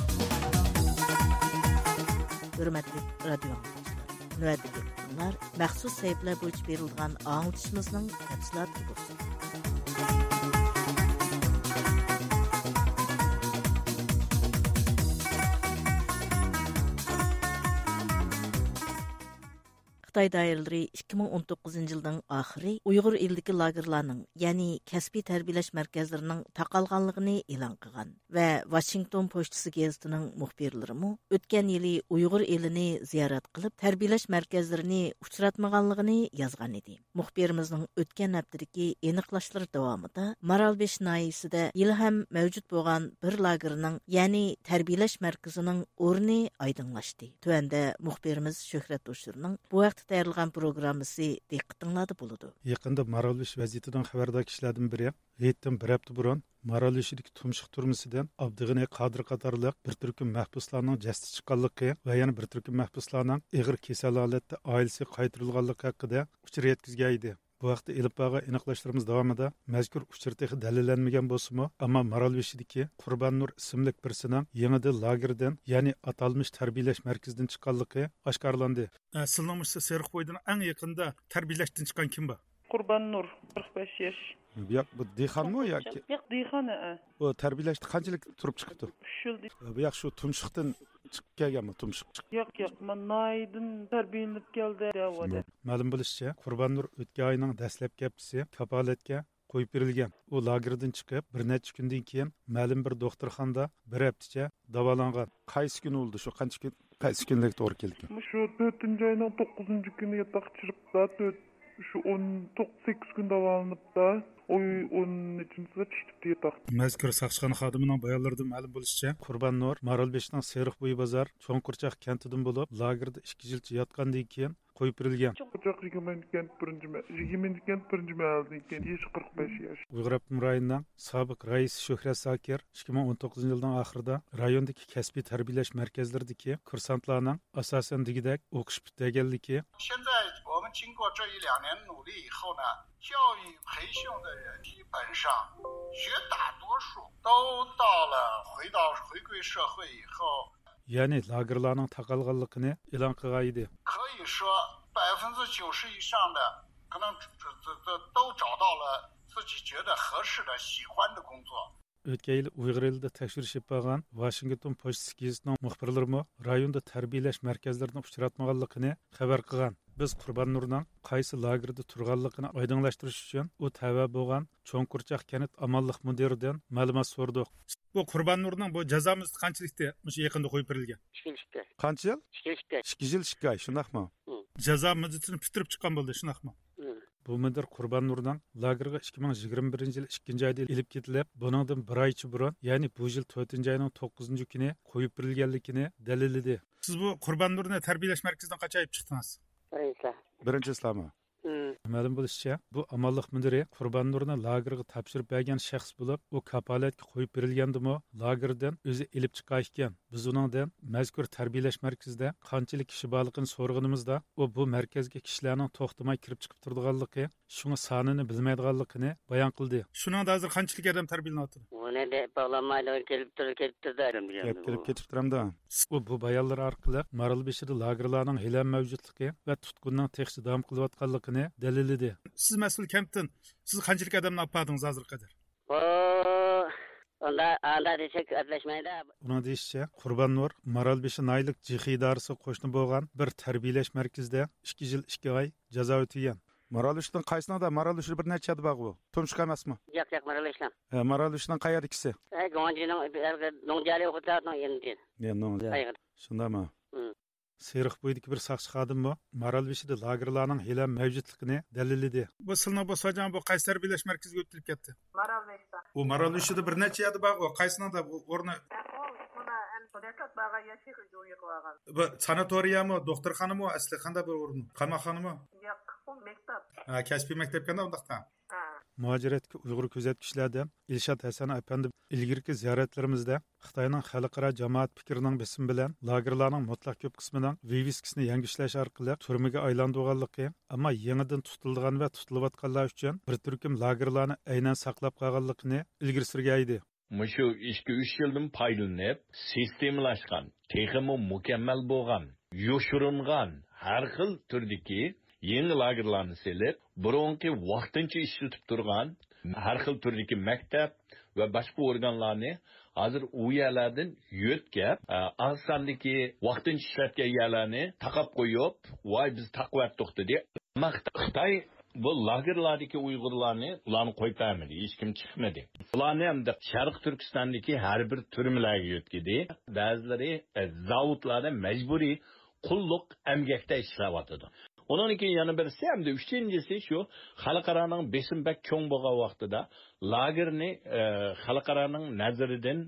ھۆرمەتلىك رادىيو ئاڭلىغۇچىلار، نۆۋەتتىكى ئۇقتۇرۇلار مەخسۇس سەھىپىلەر بويىچە بېرىلىدىغان ئاڭلىتىشىمىزنىڭ تەپسىلاتىدا بولسۇن. خىتاي دائىرىلىرى ئىككى مىڭ ئون توققۇزىنچى يىلنىڭ ئاخىرى ئۇيغۇر ئېلىدىكى لاگېرلارنىڭ، يەنى كەسپىي تەربىيەلەش مەركەزلىرىنىڭ تاقالغانلىقىنى ئېلان قىلغان ۋە ۋاشىنگتون پوچتىسى گېزىتىنىڭ مۇخبىرلىرىمۇ ئۆتكەن يىلى ئۇيغۇر ئېلىنى زىيارەت قىلىپ، تەربىيەلەش مەركەزلىرىنى ئۇچراتمىغانلىقىنى يازغان ئىدى. مۇخبىرىمىزنىڭ ئۆتكەن ھەپتىدىكى ئېنىقلاشلىرى داۋامىدا مارالبېشى ناھىيىسىدە ھېلىھەم مەۋجۇت بولغان بىر لاگېرنىڭ، يەنى تەربىيەلەش مەركىزىنىڭ ئورنى ئايدىڭلاشتى. تۆۋەندە مۇخبىرىمىز شۆھرەت ھوشۇرنىڭ بۇ ھەقتە تەييارلىغان پروگراممىسى دىققىتىڭلاردا بولىدۇ. يېقىندا مارالبېشى ۋەزىيىتىدىن خەۋەردار كىشىلەردىن بىرى ھېيتتىن بىر ھەپتە بۇرۇن مارالبېشىدىكى تۇمشۇق تۈرمىسىدىن ئابدۇغېنى قادىر قاتارلىق بىر تۈركۈم مەھبۇسلارنىڭ جەسىتى چىققانلىقى ۋە يەنە بىر تۈركۈم مەھبۇسلارنىڭ ئېغىر كېسەل ھالەتتە ئائىلىسىگە قايتۇرۇلغانلىقى ھەققىدە ئۇچۇر يەتكۈزگەن ئىدى. بۇ ھەقتە ئېلىپ بارغان ئېنىقلاشلىرىمىز داۋامىدا مەزكۇر ئۇچۇر تېخى دەلىللەنمىگەن بولسىمۇ، ئەمما مارالبېشىدىكى قۇربان نۇر ئىسىملىك بىرسىنىڭ يېڭىدىن لاگېردىن، يەنى ئاتالمىش تەربىيەلەش مەركىزىدىن چىققانلىقى ئاشكارىلاندى. ئە، سىلىنىڭ مۇشۇ سېرىق بويىدىن ئەڭ يېقىندا تەربىيەلەشتىن چىققان كىم بار؟ قۇربان نۇر، قىرىق بەش ياش. بۇياق بۇ دېھقانمۇ ياكى؟ ياق، دېھقان، ھە. بۇ تەربىيەلەشتە قانچىلىك تۇرۇپ چىقىپتۇ؟ ئۈچ يىل دېدى. بۇياق شۇ تۇمشۇقتىن چىقىپ كەلگەنمۇ، تۇمشۇق چىقىپ؟ ياق، ياق، مانا ناھىيەدىن تەربىيەلىنىپ كەلدى دەۋاتىدۇ. مەلۇم بولۇشىچە، قۇربان نۇر ئۆتكەن ئاينىڭ دەسلەپكى ھەپتىسى كاپالەتكە قويۇپ بېرىلگەن. ئۇ لاگېردىن چىقىپ، بىر نەچچە كۈندىن كېيىن مەلۇم بىر دوختۇرخانىدا بىر ھەپتىچە داۋالانغان. قايسى كۈنى بولدى شۇ؟ قانچە كۈن، قايسى كۈنلۈك توغرا كېلىدىكەن؟ مۇشۇ تۆتىنچى ئاينىڭ توققۇزىنچى كۈنى ياتاققا چىقىپلا، تۆت، شۇ ئون توققۇز سەككىز كۈن داۋالىنىپتا، ئۇ ئون نەچچىنچىسىدا چىقىپتۇ ياتاقتىن. مەزكۇر ساقچىخانا خادىمىنىڭ بايانلىرىدىن مەلۇم بولۇشىچە، قۇربان نۇر مارالبېشىنىڭ سېرىق بويى بازار چوڭ قورچاق كەنتىدىن بولۇپ، لاگېردا ئىككى يىلچە ياتقاندىن كېيىن قويۇپ بېرىلگەن. چوڭ قورچاق يىگىرمە كەنت بىرىنچى مە-، يىگىرمە كەنت بىرىنچى مەھەللىدىن كېيىن، يېشى قىرىق بەش ياش. ئۇيغۇر ئاپتونوم رايونىنىڭ سابىق رەئىسى شۆھرەت زاكىر ئىككى مىڭ ئون توققۇزىنچى يىلنىڭ ئاخىرىدا رايوندىكى كەسپىي تەربىيەلەش مەركەزلىرىدىكى كۇرسانتلارنىڭ ئاساسەن دېگۈدەك ئوقۇش پۈتتۈرگەنلىكى، 现在我们经过这一两年努力以后呢，教育培训的人基本上绝大多数都到了回到回归社会以后， يەنى لاگېرلارنىڭ تاقالغانلىقىنى ئېلان قىلغان ئىدى. 可以说百分之九十以上的可能这这这都找到了自己觉得合适的、喜欢的工作。 ئۆتكەن يىلى ئۇيغۇر ئېلىدا تەكشۈرۈش ئېلىپ بارغان ۋاشىنگتون پوچتىسى گېزىتىنىڭ مۇخبىرلىرىمۇ رايوندا تەربىيەلەش مەركەزلىرىنى ئۇچراتمىغانلىقىنى خەۋەر قىلغان. بىز قۇربان نۇرنىڭ قايسى لاگېردا تۇرغانلىقىنى ئايدىڭلاشتۇرۇش ئۈچۈن ئۇ تەۋە بولغان چوڭ قورچاق كەنت ئامانلىق مۇدىرىدىن مەلۇمات سورىدۇق. بۇ قۇربان نۇرنىڭ بۇ جازا مۇددىتى قانچىلىكتى مۇشۇ يېقىندا قويۇپ بېرىلگەن؟ ئىككى يىل ئىككى ئاي. قانچە يىل؟ ئىككى يىل ئىككى ئاي. ئىككى يىل ئىككى ئاي، شۇنداقمۇ؟ مم. جازا مۇددىتىنى پۈتتۈرۈپ چىققان بولدى، شۇنداقمۇ؟ مم. بۇ مۇدىر قۇربان نۇرنىڭ لاگېرغا ئىككى مىڭ يىگىرمە بىرىنچى يىل ئىككىنچى ئايدا ئېلىپ كېتىلىپ، بۇنىڭدىن بىر ئايچە بۇرۇن، يەنى بۇ يىل تۆتىنچى ئاينىڭ توققۇزىنچى كۈنى قويۇپ بېرىلگەنلىكىنى دەلىللىدى. سىز بۇ قۇربان نۇرنى تەربىيەلەش مەركىزىدىن قاچان ئېلىپ چىقتىڭىز؟ بىرىنچى ئىسلام. بىرىنچى ئىسلاممۇ؟ مم. مەلۇم بولۇشىچە، بۇ ئامانلىق مۇدىرى قۇربان نۇرنى لاگېرغا تاپشۇرۇپ بەرگەن شەخس بولۇپ، ئۇ كاپالەتكە قويۇپ بېرىلگەندىمۇ لاگېردىن ئۆزى ئېلىپ چىققان ئىكەن. بىز ئۇنىڭدىن مەزكۇر تەربىيەلەش مەركىزىدە قانچىلىك كىشى بارلىقىنى سورىغىنىمىزدا، ئۇ بۇ مەركەزگە كىشىلەرنىڭ توختىماي كىرىپ چىقىپ تۇرىدىغانلىقى، شۇڭا سانىنى بىلمەيدىغانلىقىنى بايان قىلدى. شۇنىڭدا ھازىر قانچىلىك ئادەم تەربىيەلىنىۋاتىدۇ؟ ئۇنى دەپ باغلانمايدۇ، كېلىپ تۇرىدۇ، كېلىپ تۇرىدۇ ئادەم دېگەن گەپ بۇ. كېلىپ كېتىپ تۇرامدۇ؟ ئۇ بۇ بايانلىرى ئارقىلىق مارالبېشىدا لاگېرلارنىڭ ھېلىھەم مەۋجۇتلۇقى ۋە تۇتقۇننىڭ تېخىچە داۋام قىلىۋاتقانلىقىنى دەلىللىدى. سىز مەسئۇل كەنتتىن، سىز قانچىلىك ئادەمنى ئاپاردىڭىز ھازىرغا قەدەر؟ بۇ ئۇندا، ئاندا دېسەك ئەپلەشمەيدۇ. ئۇنىڭ دېيىشىچە، قۇربان نۇر مارالبېشى ناھىيەلىك جىخې ئىدارىسىگە قوشنا بولغان بىر تەربىيەلەش مەركىزىدە ئىككى يىل ئىككى ئاي جازا ئۆتىگەن. مارالبېشىنىڭ قايسىنىڭدا؟ مارالبېشىدا بىر نەچچە يەردە بارغۇ. تۇمشۇق ئەمەسمۇ؟ ياق، ياق، مارالبېشىنىڭ. ھە، مارالبېشىنىڭ قەيەردىكىسى؟ ھە، گۇاڭجىنىڭ، نوڭجيالى ھوتېلنىڭ يېنىدىكى. يا، نوڭجيالى. قايغىدا. شۇنداقمۇ؟ مم. سېرىق بويىدىكى بىر ساقچى خادىممۇ مارالبېشىدا لاگېرلارنىڭ ھېلىھەم مەۋجۇتلۇقىنى دەلىللىدى. بۇ سىلىنىڭ بۇ ساجان بۇ قايسى تەربىيەلەش مەركىزىگە ئۆتۈلۈپ كەتتى؟ مارالبېشىدا. ئۇ مارالبېشىدا بىر نەچچە يەردە بارغۇ. قايسىنىڭدا بۇ ئورنى؟ ئۇ مانا ئەمدى دەسلەپ بارغان يەر شېخىجۇ يىغىۋالغان. بۇ ساناتورىيەمۇ، دوختۇرخانىمۇ، ئەسلى قانداق بىر ئورۇن؟ قاماقخانىمۇ؟ ياق، ئۇ مەكتەپ. ھە، كەسپىي مەكتەپكەندە ئۇنداقتا. ھە. مۇھاجىرەتتىكى ئۇيغۇر كۆزەتكۈچىلەردىن ئىلشات ھەسەن ئەپەندى ئىلگىرىكى زىيارەتلىرىمىزدە خىتاينىڭ خەلقئارا جامائەت پىكرىنىڭ بېسىمى بىلەن لاگېرلارنىڭ مۇتلەق كۆپ قىسمىنىڭ ۋىۋىسكىسىنى يەڭگۈشلەش ئارقىلىق تۈرمىگە ئايلاندۇرغانلىقى، ئەمما يېڭىدىن تۇتۇلىدىغان ۋە تۇتۇلۇۋاتقانلار ئۈچۈن بىر تۈركۈم لاگېرلارنى ئەينەن ساقلاپ قالغانلىقىنى ئىلگىرى سۈرگەن ئىدى. مۇشۇ ئىككى، ئۈچ يىلدىن پايدىلىنىپ، سىستېمىلاشقان، تېخىمۇ مۇكەممەل بولغان، يوشۇرۇنغان ھەر خىل تۈردىكى يېڭى لاگېرلارنى سېلىپ، بۇرۇنقى ۋاقتىنچە ئىشلىتىپ تۇرغان ھەر خىل تۈردىكى مەكتەپ ۋە باشقا ئورگانلارنى ھازىر ئۇ يەرلەردىن يۆتكەپ، ئاز ساندىكى ۋاقتىنچە ئىشلەتكەن يەرلەرنى تاقاپ قويۇپ، ۋاي، بىز تاقىۋەتتۇق دېدى. ئەمما خىتاي بۇ لاگېرلاردىكى ئۇيغۇرلارنى، ئۇلارنى قويۇپ بەرمىدى، ھېچكىم چىقمىدى. ئۇلارنى ئەمدى شەرقىي تۈركىستاندىكى ھەر بىر تۈرمىلەرگە يۆتكىدى. بەزىلىرى، ئە، زاۋۇتلاردا مەجبۇرىي قۇللۇق ئەمگەكتە ئىشلەۋاتىدۇ. ئۇنىڭدىن كېيىن يەنە بىرسى، ھەمدە ئۈچىنچىسى شۇ، خەلقئارانىڭ بېسىمى بەك چوڭ بولغان ۋاقتىدا لاگېرنى، ئە، خەلقئارانىڭ نەزىرىدىن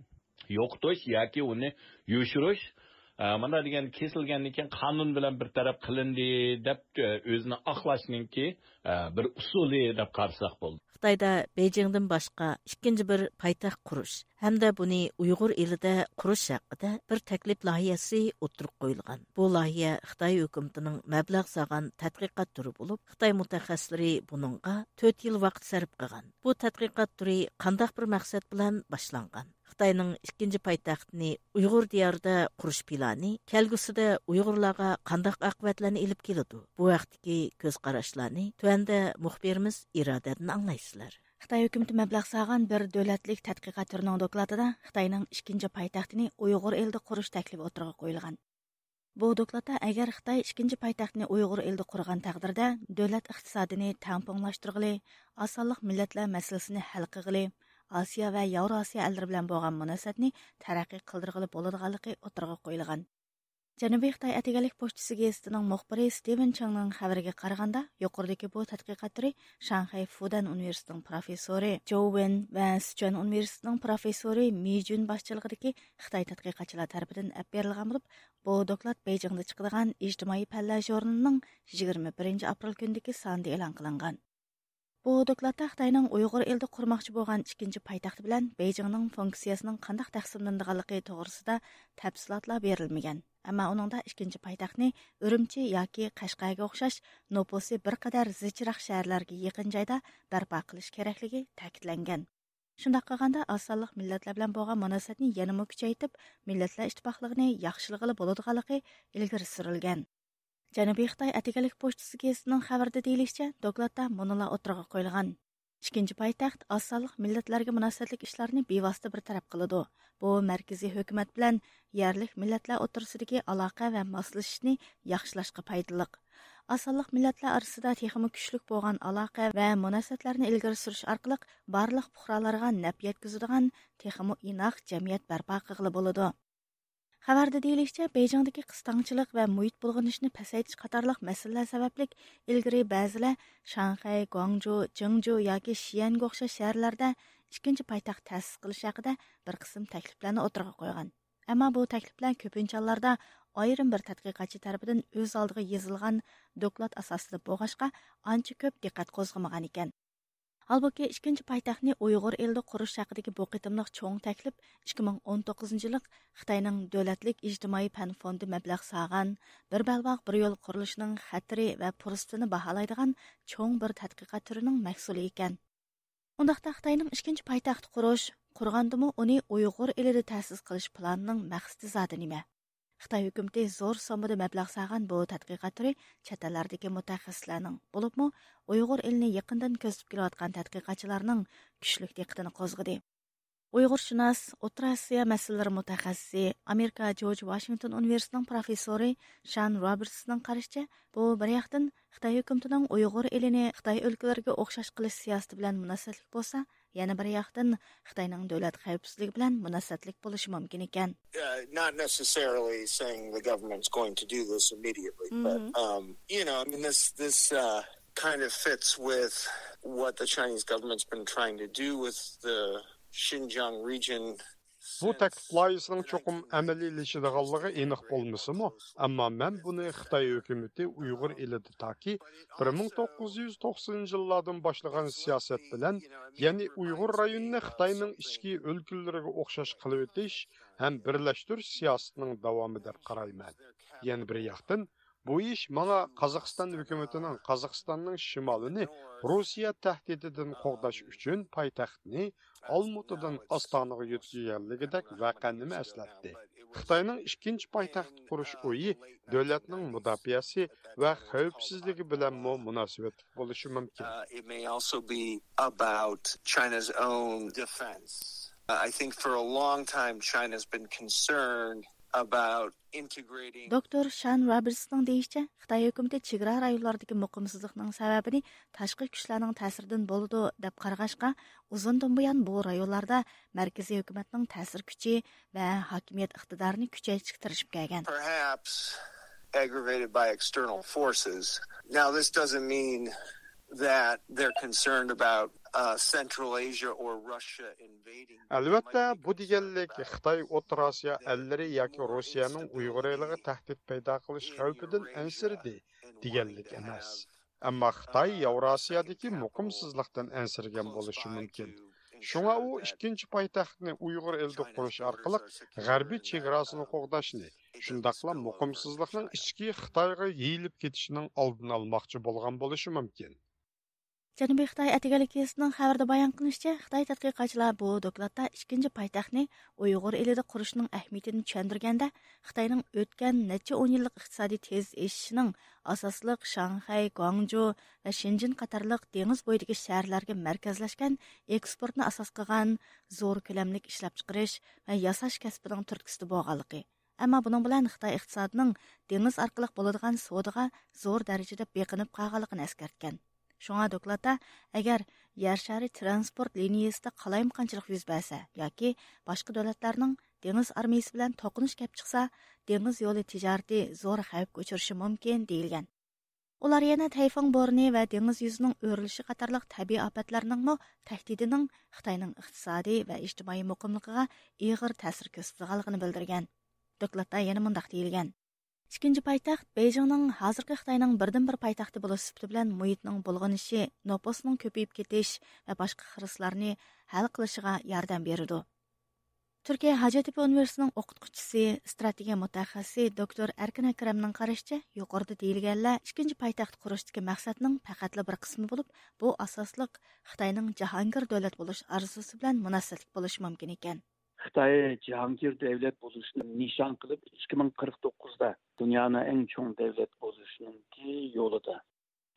يوقىتىش ياكى ئۇنى يوشۇرۇش، ئە، مانا دېگەن كېسىلگەندىن كېيىن قانۇن بىلەن بىر تەرەپ قىلىندى دەپ، ئە، ئۆزىنى ئاقلاشنىڭكى، ئە، بىر ئۇسۇلى دەپ قارىساق بولىدۇ. خىتايدا بېيجىڭدىن باشقا ئىككىنچى بىر پايتەخت قۇرۇش ھەمدە بۇنى ئۇيغۇر ئېلىدە قۇرۇش ھەققىدە بىر تەكلىپ لايىھەسى ئوتتۇرىغا قويۇلغان. بۇ لايىھە خىتاي ھۆكۈمىتىنىڭ مەبلەغ سالغان تەتقىقات تۈرى بولۇپ، خىتاي مۇتەخەسسىسلىرى بۇنىڭغا تۆت يىل ۋاقىت سەرپ قىلغان. بۇ تەتقىقات تۈرى قانداق بىر مەقسەت بىلەن باشلانغان؟ خىتاينىڭ ئىككىنچى پايتەختىنى ئۇيغۇر دىيارىدا قۇرۇش پىلانى كەلگۈسىدە ئۇيغۇرلارغا قانداق ئاقىۋەتلەرنى ئېلىپ كېلىدۇ؟ بۇ ھەقتىكى كۆز قاراشلارنى تۆۋەندە مۇخبىرىمىز ئىرادەدىن ئاڭلايسىلەر. خىتاي ھۆكۈمىتى مەبلەغ سالغان بىر دۆلەتلىك تەتقىقات تۈرىنىڭ دوكلاتىدا خىتاينىڭ ئىككىنچى پايتەختىنى ئۇيغۇر ئېلىدە قۇرۇش تەكلىپى ئوتتۇرىغا قويۇلغان. بۇ دوكلاتتا ئەگەر خىتاي ئىككىنچى پايتەختنى ئۇيغۇر ئېلىدە قۇرغان تەقدىردە، دۆلەت ئىقتىسادىنى تەڭپۇڭلاشتۇرغىلى، ئاز سانلىق مىللەتلەر مەسىلىسىنى ھەل قىلغىلى، ئاسىيا ۋە ياۋراسىيا ئەللىرى بىلەن بولغان مۇناسىۋەتنى تەرەققىي قىلدۇرغىلى بولىدىغانلىقى ئوتتۇرىغا قويۇلغان. جەنۇبىي خىتاي ئەتىگەنلىك پوچتىسى گېزىتىنىڭ مۇخبىرى ستىۋېن چېڭنىڭ خەۋىرىگە قارىغاندا، يۇقىرىدىكى بۇ تەتقىقات تۈرى شاڭخەي فۇدەن ئۇنىۋېرسىتېتىنىڭ پروفېسسورى جوۋ ۋېن ۋە سىچۈەن ئۇنىۋېرسىتېتىنىڭ پروفېسسورى مى جۈن باشچىلىقىدىكى خىتاي تەتقىقاتچىلار تەرىپىدىن ئەپ بېرىلغان بولۇپ، بۇ دوكلات بېيجىڭدا چىقىدىغان ئىجتىمائىي پەنلەر ژۇرنىلىنىڭ يىگىرمە بىرىنچى ئاپرېل كۈنىدىكى سانىدا ئېلان قىلىنغان. بۇ دوكلاتتا خىتاينىڭ ئۇيغۇر ئېلىدا قۇرماقچى بولغان ئىككىنچى پايتەخت بىلەن بېيجىڭنىڭ فۇنكسىيەسىنىڭ قانداق تەقسىملىنىدىغانلىقى توغرىسىدا تەپسىلاتلار بېرىلمىگەن. ئەمما ئۇنىڭدا ئىككىنچى پايتەختنى ئۈرۈمچى ياكى قەشقەرگە ئوخشاش نوپۇسى بىر قەدەر زىچراق شەھەرلەرگە يېقىن جايدا بەرپا قىلىش كېرەكلىكى تەكىتلەنگەن. شۇنداق قىلغاندا، ئاز سانلىق مىللەتلەر بىلەن بولغان مۇناسىۋەتنى يەنىمۇ كۈچەيتىپ، مىللەتلەر ئىتتىپاقلىقىنى ياخشىلىغىلى بولىدىغانلىقى ئىلگىرى سۈرۈلگەن. جەنۇبىي خىتاي ئەتىگەنلىك پوچتىسى گېزىتىنىڭ خەۋىرىدە دېيىلىشىچە، دوكلاتتا مۇنۇلار ئوتتۇرىغا قويۇلغان: ئىككىنچى پايتەخت ئاز سانلىق مىللەتلەرگە مۇناسىۋەتلىك ئىشلارنى بىۋاسىتە بىر تەرەپ قىلىدۇ. بۇ مەركىزىي ھۆكۈمەت بىلەن يەرلىك مىللەتلەر ئوتتۇرىسىدىكى ئالاقە ۋە ماسلىشىشنى ياخشىلاشقا پايدىلىق. ئاز سانلىق مىللەتلەر ئارىسىدا تېخىمۇ كۈچلۈك بولغان ئالاقە ۋە مۇناسىۋەتلەرنى ئىلگىرى سۈرۈش ئارقىلىق بارلىق پۇقرالارغا نەپ يەتكۈزىدىغان تېخىمۇ ئىناق جەمئىيەت بەرپا قىلغىلى بولىدۇ. خەۋەردە دېيىلىشىچە، بېيجىڭدىكى قىستاڭچىلىق ۋە مۇھىت بۇلغىنىشىنى پەسەيتىش قاتارلىق مەسىلىلەر سەۋەبلىك ئىلگىرى بەزىلەر شاڭخەي، گۇاڭجۇ، جېڭجۇ ياكى شيەنگە ئوخشاش شەھەرلەردە ئىككىنچى پايتەخت تەسىس قىلىش ھەققىدە بىر قىسىم تەكلىپلەرنى ئوتتۇرىغا قويغان. ئەمما بۇ تەكلىپلەر كۆپىنچە ھاللاردا ئايرىم بىر تەتقىقاتچى تەرىپىدىن ئۆز ئالدىغا يېزىلغان دوكلات ئاساسىدا بولغاچقا، ئانچە كۆپ دىققەت قوزغىمىغان ئىكەن. ھالبۇكى، ئىككىنچى پايتەختنى ئۇيغۇر ئېلىدە قۇرۇش ھەققىدىكى بۇ قېتىملىق چوڭ تەكلىپ ئىككى مىڭ ئون توققۇزىنچى يىللىق خىتاينىڭ دۆلەتلىك ئىجتىمائىي پەن فوندى مەبلەغ سالغان بىر بەلباغ بىر يول قۇرۇلۇشىنىڭ خەتىرى ۋە پۇرسىتىنى باھالايدىغان چوڭ بىر تەتقىقات تۈرىنىڭ مەھسۇلى ئىكەن. ئۇنداقتا خىتاينىڭ ئىككىنچى پايتەخت قۇرۇش، قۇرغاندىمۇ ئۇنى ئۇيغۇر ئېلىدە تەسىس قىلىش پىلانىنىڭ مەقسىتى زادى نېمە؟ خىتاي ھۆكۈمىتى زور سوممىدا مەبلەغ سالغان بۇ تەتقىقات تۈرى چەت ئەللەردىكى مۇتەخەسسىسلەرنىڭ، بولۇپمۇ ئۇيغۇر ئېلىنى يېقىندىن كۆزىتىپ كېلىۋاتقان تەتقىقاتچىلارنىڭ كۈچلۈك دىققىتىنى قوزغىدى. ئۇيغۇرشۇناس، ئوتتۇرا ئاسىيا مەسىلىلىرى مۇتەخەسسىسى، ئامېرىكا جورج ۋاشىنگتون ئۇنىۋېرسىتېتىنىڭ پروفېسسورى شان روبېرتسنىڭ قارىشىچە، بۇ بىر ياقتىن خىتاي ھۆكۈمىتىنىڭ ئۇيغۇر ئېلىنى خىتاي ئۆلكىلىرىگە ئوخشاش قىلىش سىياسىتى بىلەن مۇناسىۋەتلىك بولسا، يەنە بىر ياقتىن خىتاينىڭ دۆلەت خەۋپسىزلىكى بىلەن مۇناسىۋەتلىك بولۇشى مۇمكىن ئىكەن. Uh, not necessarily saying the government's going to do this immediately, but, Mhm. um, you know, I mean, this, this, uh, kind of fits with what the Chinese government's been trying to do with the Xinjiang region. بۇ تەكلىپ لايىھىسىنىڭ چوقۇم ئەمەلىيلىشىدىغانلىقى ئېنىق بولمىسىمۇ، ئەمما مەن بۇنى خىتاي ھۆكۈمىتى ئۇيغۇر ئېلىدە تاكى بىر مىڭ توققۇز يۈز توقسىنىنچى يىللاردىن باشلىغان سىياسەت بىلەن، يەنى ئۇيغۇر رايونىنى خىتاينىڭ ئىچكى ئۆلكىلىرىگە ئوخشاش قىلىۋېتىش ھەم بىرلەشتۈرۈش سىياسىتىنىڭ داۋامى دەپ قارايمەن. يەنە بىر ياقتىن، بۇ ئىش ماڭا قازاقىستان ھۆكۈمىتىنىڭ قازاقىستاننىڭ شىمالىنى روسىيە تەھدىتىدىن قوغداش ئۈچۈن پايتەختنى ئالمۇتىدىن ئاستانىغا يۆتكىگەنلىكىدەك ۋەقەنىمۇ ئەسلەتتى. خىتاينىڭ ئىككىنچى پايتەخت قۇرۇش ئويى دۆلەتنىڭ مۇداپىئەسى ۋە خەۋپسىزلىكى بىلەنمۇ مۇناسىۋەتلىك بولۇشى مۇمكىن. Uh, it may also be about China's own defense. Uh, I think for a long time, China's been concerned about integrating. دوكتور شان رابېرتسنىڭ دېيىشىچە، خىتاي ھۆكۈمىتى چېگرا رايونلاردىكى مۇقىمسىزلىقنىڭ سەۋەبىنى تاشقى كۈچلەرنىڭ تەسىرىدىن بولىدۇ، دەپ قارىغاچقا، ئۇزۇندىن بۇيان بۇ رايونلاردا مەركىزىي ھۆكۈمەتنىڭ تەسىر كۈچى ۋە ھاكىمىيەت ئىقتىدارىنى كۈچەيتىشكە تىرىشىپ كەلگەن. Perhaps aggravated by external forces. Now, this doesn't mean that they're concerned about, uh, Central Asia or Russia invading. ئەلۋەتتە، بۇ دېگەنلىك خىتاي ئوتتۇرا ئاسىيا ئەللىرى ياكى روسىيەنىڭ ئۇيغۇر ئېلىغا تەھدىت پەيدا قىلىش خەۋپىدىن ئەنسىرىدى دېگەنلىك ئەمەس. ئەمما خىتاي ياۋراسىيادىكى مۇقىمسىزلىقتىن ئەنسىرىگەن بولۇشى مۇمكىن. شۇڭا ئۇ ئىككىنچى پايتەختنى ئۇيغۇر ئېلىدە قۇرۇش ئارقىلىق غەربىي چېگراسىنى قوغداشنى، شۇنداقلا مۇقىمسىزلىقنىڭ ئىچكى خىتايغا يېيىلىپ كېتىشىنىڭ ئالدىنى ئالماقچى بولغان بولۇشى مۇمكىن. جەنۇبىي خىتاي ئەتىگەنلىك گېزىتىنىڭ خەۋىرىدە بايان قىلىنىشىچە، خىتاي تەتقىقاتچىلار بۇ دوكلاتتا ئىككىنچى پايتەختنى ئۇيغۇر ئېلىدە قۇرۇشنىڭ ئەھمىيىتىنى چۈشەندۈرگەندە، خىتاينىڭ ئۆتكەن نەچچە ئون يىللىق ئىقتىسادىي تېز ئېشىشىنىڭ ئاساسلىق شاڭخەي، گۇاڭجۇ ۋە شېنجېن قاتارلىق دېڭىز بويىدىكى شەھەرلەرگە مەركەزلەشكەن ئېكسپورتنى ئاساس قىلغان زور كۆلەملىك ئىشلەپچىقىرىش ۋە ياساش كەسپىنىڭ تۈرتكىسىدە بولغانلىقى، ئەمما بۇنىڭ بىلەن خىتاي ئىقتىسادىنىڭ دېڭىز ئارقىلىق بولىدىغان سودىغا زور دەرىجىدە بېقىنىپ قالغانلىقىنى ئەسكەرتكەن. شۇڭا دوكلاتتا، ئەگەر يەر شارى ترانسپورت لىنىيىسىدا قالايمىقانچىلىق يۈز بەرسە ياكى باشقا دۆلەتلەرنىڭ دېڭىز ئارمىيىسى بىلەن توقۇنۇش كەپ چىقسا، دېڭىز يولى تىجارىتى زور خەۋپكە ئۇچرىشى مۇمكىن، دېيىلگەن. ئۇلار يەنە تەيفۇڭ بورىنى ۋە دېڭىز يۈزىنىڭ ئۆرۈلۈشى قاتارلىق تەبىئىي ئاپەتلەرنىڭمۇ تەھدىتىنىڭ خىتاينىڭ ئىقتىسادىي ۋە ئىجتىمائىي مۇقىملىقىغا ئېغىر تەسىر كۆرسىتىدىغانلىقىنى بىلدۈرگەن. دوكلاتتا يەنە مۇنداق دېيىلگەن: ئىككىنچى پايتەخت بېيجىڭنىڭ ھازىرقى خىتاينىڭ بىردىنبىر پايتەختى بولۇش سۈپىتى بىلەن مۇھىتنىڭ بۇلغىنىشى، نوپۇسنىڭ كۆپىيىپ كېتىش ۋە باشقا خىرىسلارنى ھەل قىلىشىغا ياردەم بېرىدۇ. تۈركىيە ھاجەتتېپە ئۇنىۋېرسىتېتىنىڭ ئوقۇتقۇچىسى، ئىستراتېگىيە مۇتەخەسسىسى دوكتور ئەركىن ئەكرەمنىڭ قارىشىچە، يۇقىرىدا دېيىلگەنلەر ئىككىنچى پايتەخت قۇرۇشتىكى مەقسەتنىڭ پەقەتلا بىر قىسمى بولۇپ، بۇ ئاساسلىق خىتاينىڭ جاھانگىر دۆلەت بولۇش ئارزۇسى بىلەن مۇناسىۋەتلىك بولۇشى مۇمكىن ئىكەن. خىتاي جاھانگىر دۆلەت بولۇشنى نىشان قىلىپ، ئىككى مىڭ قىرىق توققۇزدا دۇنيانىڭ ئەڭ چوڭ دۆلەت بولۇشنىڭكى يولىدا.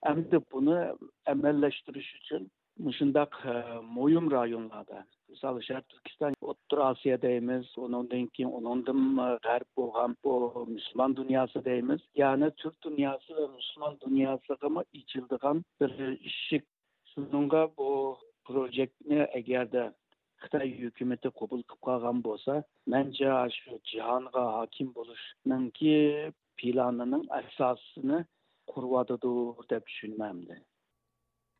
ئەمدى بۇنى ئەمەللەشتۈرۈش ئۈچۈن مۇشۇنداق، ئە، مۇھىم رايونلاردا، مىسال، شەرقىي تۈركىستان، ئوتتۇرا ئاسىيا دەيمىز، ئۇنىڭدىن كېيىن ئۇنىڭدىن، ئە، غەرب بولغان بۇ مۇسۇلمان دۇنياسى دەيمىز. يەنى تۈرك دۇنياسى ۋە مۇسۇلمان دۇنياسىغىمۇ ئېچىلىدىغان بىر ئىشىك. شۇنىڭغا بۇ پروژېكتنى ئەگەردە خىتاي ھۆكۈمىتى قوبۇل قىلىپ قالغان بولسا، مەنچە شۇ جاھانغا ھاكىم بولۇشنىڭكى پىلانىنىڭ ئاساسىنى قۇرۇۋاتىدۇ دەپ چۈشىنىمەن.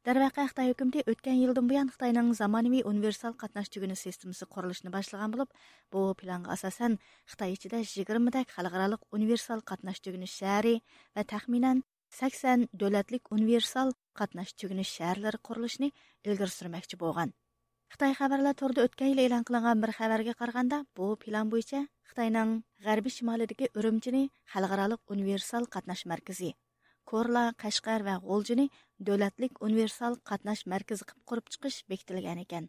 دەرۋەقە، خىتاي ھۆكۈمىتى ئۆتكەن يىلدىن بۇيان خىتاينىڭ زامانىۋى ئۇنىۋېرسال قاتناش تۈگۈنى سىستېمىسى قۇرۇلۇشىنى باشلىغان بولۇپ، بۇ پىلانغا ئاساسەن، خىتاي ئىچىدە يىگىرمىدەك خەلقئارالىق ئۇنىۋېرسال قاتناش تۈگۈنى شەھىرى ۋە تەخمىنەن سەكسەن دۆلەتلىك ئۇنىۋېرسال قاتناش تۈگۈنى شەھەرلىرى قۇرۇلۇشىنى ئىلگىرى سۈرمەكچى بولغان. خىتاي خەۋەرلەر تورىدا ئۆتكەن يىلى ئېلان قىلىنغان بىر خەۋەرگە قارىغاندا، بۇ پىلان بويىچە خىتاينىڭ غەربىي شىمالىدىكى ئۈرۈمچىنى خەلقئارالىق ئۇنىۋېرسال قاتناش مەركىزى، كورلا، قەشقەر ۋە غۇلجىنى دۆلەتلىك ئۇنىۋېرسال قاتناش مەركىزى قىلىپ قۇرۇپ چىقىش بېكىتىلگەن ئىكەن.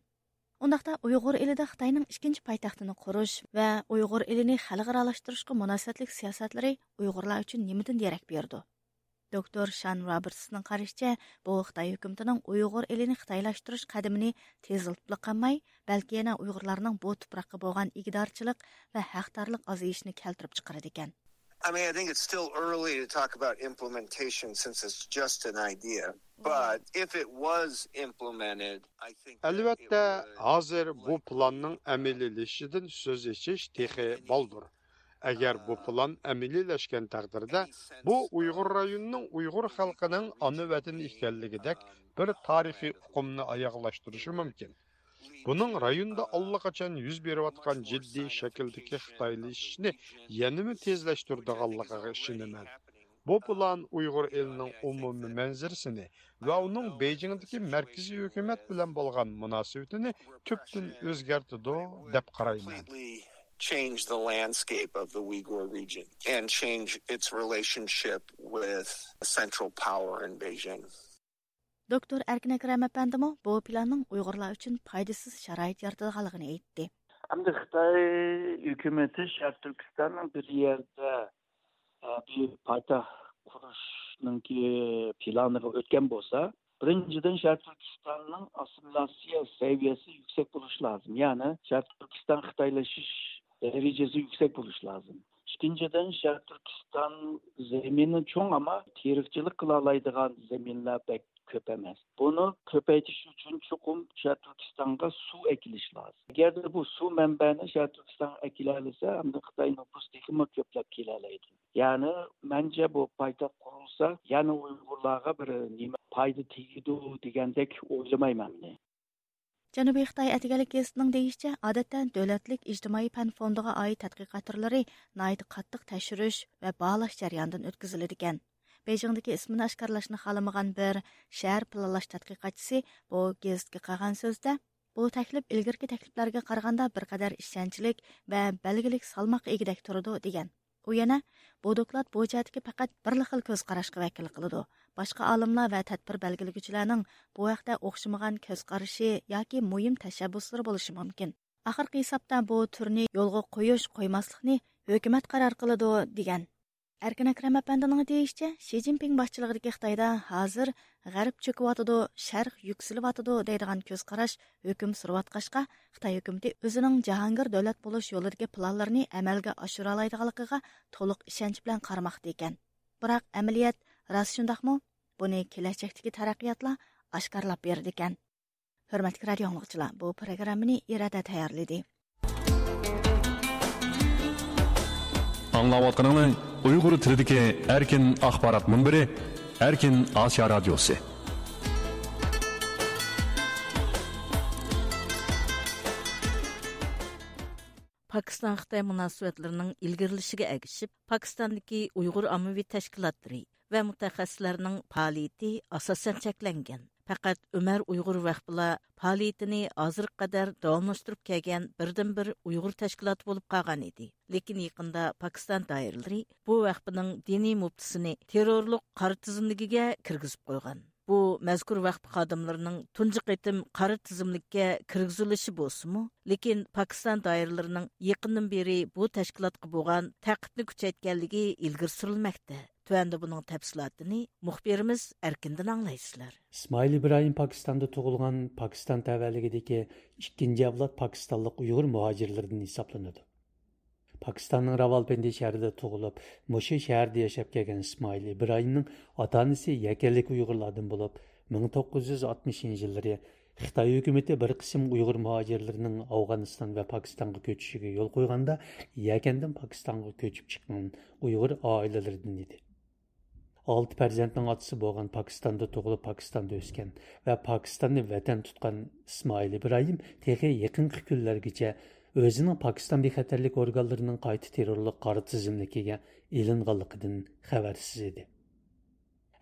ئۇنداقتا ئۇيغۇر ئېلىدە خىتاينىڭ ئىككىنچى پايتەختىنى قۇرۇش ۋە ئۇيغۇر ئېلىنى خەلقئارالاشتۇرۇشقا مۇناسىۋەتلىك سىياسەتلىرى ئۇيغۇرلار ئۈچۈن نېمىدىن دېرەك بېرىدۇ؟ دوكتور شان روبېرتسنىڭ قارىشىچە، بۇ خىتاي ھۆكۈمىتىنىڭ ئۇيغۇر ئېلىنى خىتايلاشتۇرۇش قەدىمىنى تېزلىتىپلا قالماي، بەلكى يەنە ئۇيغۇرلارنىڭ بۇ تۇپراققا بولغان ئىگىدارچىلىق ۋە ھەقدارلىق ئازىيىشىنى كەلتۈرۈپ چىقىرىدىكەن. I mean, I think it's still early to talk about implementation since it's just an idea. But if it was implemented, I think that it ئەلۋەتتە، would ھازىر بۇ پىلاننىڭ ئەمەلىيلىشىشىدىن سۆز ئېچىش تېخى بالدۇر. ئەگەر بۇ پىلان ئەمەلىيلەشكەن تەقدىردە، بۇ ئۇيغۇر رايونىنىڭ ئۇيغۇر خەلقىنىڭ ئانا ۋەتىنى ئىكەنلىكىدەك بىر تارىخىي ئۇقۇمنى ئاياغلاشتۇرۇشى مۇمكىن. بۇنىڭ رايوندا ئاللىقاچان يۈز بېرىۋاتقان جىددىي شەكىلدىكى خىتايلىشىشنى يەنىمۇ تېزلەشتۈرىدىغانلىقىغا ئىشىنىمەن. بۇ پىلان ئۇيغۇر ئېلىنىڭ ئومۇمىي مەنزىرىسىنى ۋە ئۇنىڭ بېيجىڭدىكى مەركىزىي ھۆكۈمەت بىلەن بولغان مۇناسىۋىتىنى تۈپتىن ئۆزگەرتىدۇ، دەپ قارايمەن. Change the landscape of the Uyghur region and change its relationship with central power in Beijing. دوكتور ئەركىن ئەكرەم ئەپەندىمۇ بۇ پىلاننىڭ ئۇيغۇرلار ئۈچۈن پايدىسىز شارائىت يارىتىدىغانلىقىنى ئېيتتى. ئەمدى خىتاي ھۆكۈمىتى شەرقىي تۈركىستاننىڭ بىر يەردە، ئە، بىر پايتەخت قۇرۇشنىڭكى پىلانىغا ئۆتكەن بولسا، بىرىنچىدىن، شەرقىي تۈركىستاننىڭ ئاسسىمىلياتسىيە سەۋىيەسى يۈكسەك بولۇشى لازىم. يەنى شەرقىي تۈركىستان خىتايلىشىش دەرىجىسى يۈكسەك بولۇشى لازىم. ئىككىنچىدىن، شەرقىي تۈركىستان زېمىنى چوڭ، ئەمما تېرىقچىلىق قىلالايدىغان زېمىنلار بەك كۆپ ئەمەس. بۇنى كۆپەيتىش ئۈچۈن چوقۇم شەرقىي تۈركىستانغا سۇ ئەكېلىش لازىم. ئەگەردە بۇ سۇ مەنبەنى شەرقىي تۈركىستانغا ئەكېلەلىسە، ئەمدى خىتاي نوپۇس تېخىمۇ كۆپلەپ كېلەلەيدۇ. يەنى، مەنچە، بۇ پايتەخت قۇرۇلسا، يەنە ئۇيغۇرلارغا بىر نېمە پايدا تېگىدۇ دېگەندەك ئويلىمايمەن مەن. جەنۇبىي خىتاي ئەتىگەنلىك گېزىتىنىڭ دېيىشىچە، ئادەتتە دۆلەتلىك ئىجتىمائىي پەن فوندىغا ئائىت تەتقىقات تۈرلىرى ناھايىتى قاتتىق تەكشۈرۈش ۋە باھالاش جەريانىدىن ئۆتكۈزۈلىدىكەن. بېيجىڭدىكى ئىسمىنى ئاشكارىلاشنى خالىمىغان بىر شەھەر پىلانلاش تەتقىقاتچىسى بۇ گېزىتكە قىلغان سۆزىدە، بۇ تەكلىپ ئىلگىرىكى تەكلىپلەرگە قارىغاندا بىر قەدەر ئىشەنچلىك ۋە بەلگىلىك سالماققا ئىگىدەك تۇرىدۇ، دېگەن. ئۇ يەنە، بۇ دوكلات بۇ جەھەتتىكى پەقەت بىرلا خىل كۆز قاراشقا ۋەكىللىك قىلىدۇ. باشقا ئالىملار ۋە تەدبىر بەلگىلىگۈچىلەرنىڭ بۇ ھەقتە ئوخشىمىغان كۆز قارىشى ياكى مۇھىم تەشەببۇسلىرى بولۇشى مۇمكىن. ئاخىرقى ھېسابتا بۇ تۈرنى يولغا قويۇش، قويماسلىقنى ھۆكۈمەت قارار قىلىدۇ، دېگەن. ئەركىن ئەكرەم ئەپەندىنىڭ دېيىشىچە، شى جىنپىڭ باشچىلىقىدىكى خىتايدا ھازىر غەرب چۆكۈۋاتىدۇ، شەرق يۈكسىلىۋاتىدۇ دەيدىغان كۆز قاراش ھۆكۈم سۈرۈۋاتقاچقا، خىتاي ھۆكۈمىتى ئۆزىنىڭ جاھانگىر دۆلەت بولۇش يولىدىكى پىلانلىرىنى ئەمەلگە ئاشۇرالايدىغانلىقىغا تولۇق ئىشەنچ بىلەن قارىماقتا ئىكەن. بىراق ئەمەلىيەت راست شۇنداقمۇ؟ بۇنى كېلەچەكتىكى تەرەققىياتلار ئاشكارىلاپ بېرىدىكەن. ھۆرمەتلىك رادىئو ئاڭلىغۇچىلار، بۇ پروگراممىنى ئىرادە تەييارلىدى. ئاڭلاۋاتقىنىڭلار ئۇيغۇر تىلىدىكى ئەركىن ئاخبارات مۇنبىرى، ئەركىن ئاسىيا رادىيوسى. پاكىستان-خىتاي مۇناسىۋەتلىرىنىڭ ئىلگىرىلىشىگە ئەگىشىپ، پاكىستاندىكى ئۇيغۇر ئاممىۋى تەشكىلاتلىرى ۋە مۇتەخەسسىسلەرنىڭ پائالىيىتى ئاساسەن چەكلەنگەن. پەقەت ئۆمەر ئۇيغۇر ۋەخپىلا پائالىيىتىنى ھازىرغا قەدەر داۋاملاشتۇرۇپ كەلگەن بىردىنبىر ئۇيغۇر تەشكىلاتى بولۇپ قالغان ئىدى. لېكىن يېقىندا پاكىستان دائىرىلىرى بۇ ۋەخپىنىڭ دىنىي مۇپتىسىنى تېررورلۇق قارا تىزىملىكىگە كىرگۈزۈپ قويغان. بۇ مەزكۇر ۋەخپە خادىملىرىنىڭ تۇنجى قېتىم قارا تىزىملىككە كىرگۈزۈلۈشى بولسىمۇ، لېكىن پاكىستان دائىرىلىرىنىڭ يېقىندىن بېرى بۇ تەشكىلاتقا بولغان تەقىبنى كۈچەيتكەنلىكى ئىلگىرى سۈرۈلمەكتە. تۆۋەندە بۇنىڭ تەپسىلاتىنى مۇخبىرىمىز ئەركىندىن ئاڭلايسىلەر. ئىسمائىل ئىبراھىم پاكىستاندا تۇغۇلغان، پاكىستان تەۋەلىكىدىكى ئىككىنچى ئەۋلاد پاكىستانلىق ئۇيغۇر مۇھاجىرلىرىدىن ھېسابلىنىدۇ. پاكىستاننىڭ راۋالپىندى شەھىرىدە تۇغۇلۇپ، مۇشۇ شەھەردە ياشاپ كەلگەن ئىسمائىل ئىبراھىمنىڭ ئاتا-ئانىسى يەكەنلىك ئۇيغۇرلاردىن بولۇپ، مىڭ توققۇز يۈز ئاتمىشىنچى يىللىرى خىتاي ھۆكۈمىتى بىر قىسىم ئۇيغۇر مۇھاجىرلىرىنىڭ ئافغانىستان ۋە پاكىستانغا كۆچۈشىگە يول قويغاندا، يەكەندىن پاكىستانغا كۆچۈپ چىققان ئۇيغۇر ئائىلىلىرىدىن ئىدى. ئالتە پەرزەنتنىڭ ئاتىسى بولغان، پاكىستاندا تۇغۇلۇپ، پاكىستاندا ئۆسكەن ۋە پاكىستاننى ۋەتەن تۇتقان ئىسمائىل ئىبراھىم تېخى يېقىنقى كۈنلەرگىچە ئۆزىنىڭ پاكىستان بىخەتەرلىك ئورگانلىرىنىڭ قايتا تېررورلۇق قارا تىزىملىكىگە ئېلىنغانلىقىدىن خەۋەرسىز ئىدى.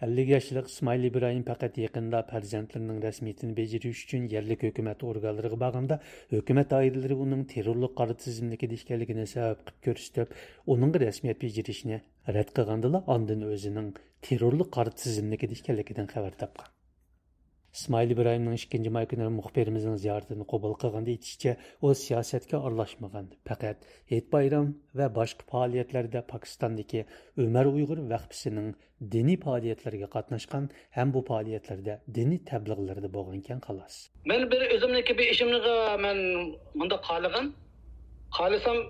ئەللىك ياشلىق ئىسمائىل ئىبراھىم پەقەت يېقىندا پەرزەنتلىرىنىڭ رەسمىيىتىنى بېجىرىش ئۈچۈن يەرلىك ھۆكۈمەت ئورگانلىرىغا بارغاندا، ھۆكۈمەت دائىرىلىرى ئۇنىڭ تېررورلۇق قارا تىزىملىكىدە ئىكەنلىكىنى سەۋەب قىلىپ كۆرسىتىپ، ئۇنىڭغا رەسمىيەت بېجىرىشنى رەت قىلغاندىلا، ئاندىن ئۆزىنىڭ تېررورلۇق قارا تىزىملىكىدە ئىكەنلىكىدىن خەۋەر تاپقان. ئىسمائىل ئىبراھىمنىڭ ئىككىنچى ماي كۈنى مۇخبىرىمىزنىڭ زىيارىتىنى قوبۇل قىلغاندا ئېيتىشىچە، ئۇ سىياسەتكە ئارىلاشمىغان، پەقەت ھېيت-بايرام ۋە باشقا پائالىيەتلەردە پاكىستاندىكى ئۆمەر ئۇيغۇر ۋەخپىسىنىڭ دىنىي پائالىيەتلىرىگە قاتناشقان ھەم بۇ پائالىيەتلەردە دىنىي تەبلىغلىرىدا بولغانىكەن، خالاس. مەن بىر ئۆزۈمنىڭكى بىر ئىشىمنىغا مەن مۇنداق خالىغان. خالىسام،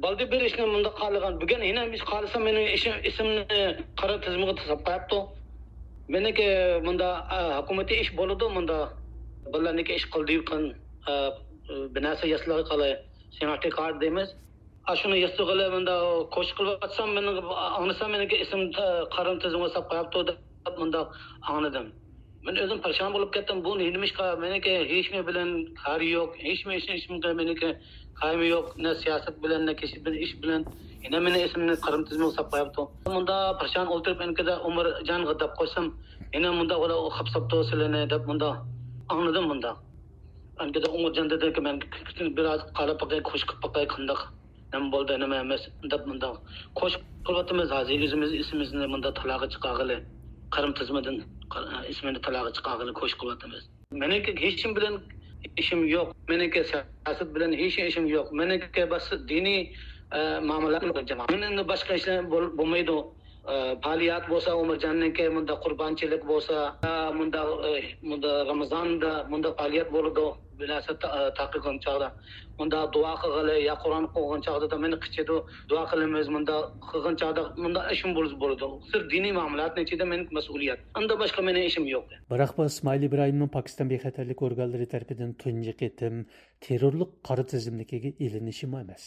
بالدى بىر ئىشنى مۇنداق خالىغان. بۈگۈن يەنە بىر خالىسام، مېنىڭ ئىشىم، ئىسمىمنى قارا تىزىمغا تاشلاپ قويۇپتۇ. مېنىڭكى مۇندا، ئا، ھۆكۈمىتى ئىش بولىدۇ، مۇندا بالىلارنىڭكى ئىش قىلدى، قىلغان، ئا، بىر نەرسە ياسىلىغا قالاي، سېناتى كارت دەيمىز. ئاشۇنى ياسىغىلى مۇندا كوشۇش قىلىۋاتسام، مېنىڭ ئاڭلىسام، مېنىڭكى ئىسىم قارا تىزىمغا ساپ قويۇپتۇ دەپ مۇنداق ئاڭلىدىم. مەن ئۆزۈم پەرىشان بولۇپ كەتتىم. بۇ نېمىشقا؟ مېنىڭكى ھېچنېمە بىلەن كارى يوق، ھېچنېمە، ھېچنېمە، مېنىڭكى كارىمۇ يوق، نە سىياسەت بىلەن، نە كىشى بىلەن، ئىش بىلەن. يەنە مېنىڭ ئىسىمنى قارا تىزىمغا ساپ قويۇپتۇ. مۇندا پەرىشان ئولتۇرۇپ، ئەنكىدە ئۆمەرجانغا دەپ قويسام، يەنە مۇندا ئۇلار خاپساپتۇ سىلىنى دەپ مۇندا ئاڭلىدىم مۇندا. ئەنكىدە ئۆمەرجان دېدىكى، مەن بىر ئاز قاراپ باقاي، كوشۇش قىلىپ باقاي، قانداق نېمە بولدى، نېمە ئەمەس دەپ مۇنداق كوشۇش قىلىۋاتىمىز. ھازىر ئۆزىمىز ئىسمىمىزنى مۇنداق تالاغا چىقارغىلى، قارا تىزىمدىن، ئىسمىنى تالاغا چىقارغىلى كوشۇش قىلىۋاتىمىز. مېنىڭكى ھېچكىم بىلەن ئىشىم يوق. مېنىڭكى سىياسەت بىلەن ھېچ ئىشىم يوق. مېنىڭكى بەس دىنىي، ئە، مۇئامىلە قىلىدىغان جامائەت. مېنىڭ باشقا ئىشلار بول-، بولمايدۇ. ئە، پائالىيەت بولسا، ئۆمەرجاننىڭكى مۇنداق قۇربانچىلىق بولسا، ئە، مۇنداق، ئە، مۇنداق رامىزاندا مۇنداق پائالىيەت بولىدۇ. بىر نەرسە تا-، تارقىغان چاغدا، مۇنداق دۇئا قىلغىلى يا قۇرئان ئوقۇغان چاغدا مېنى قىچىدۇ، دۇئا قىلىمىز، مۇنداق قىلغان چاغدا مۇنداق ئىشىم بولسا بولىدۇ. سىرت دىنىي مۇئامىلاتنىڭ ئىچىدە مېنىڭ مەسئۇلىيەت. ئاندا باشقا مېنىڭ ئىشىم يوق. بىراق بۇ ئىسمائىل ئىبراھىمنىڭ پاكىستان بىخەتەرلىك ئورگانلىرى تەرىپىدىن تۇنجى قېتىم تېررورلۇق قارا تىزىملىكىگە ئېلىنىشىمۇ ئەمەس.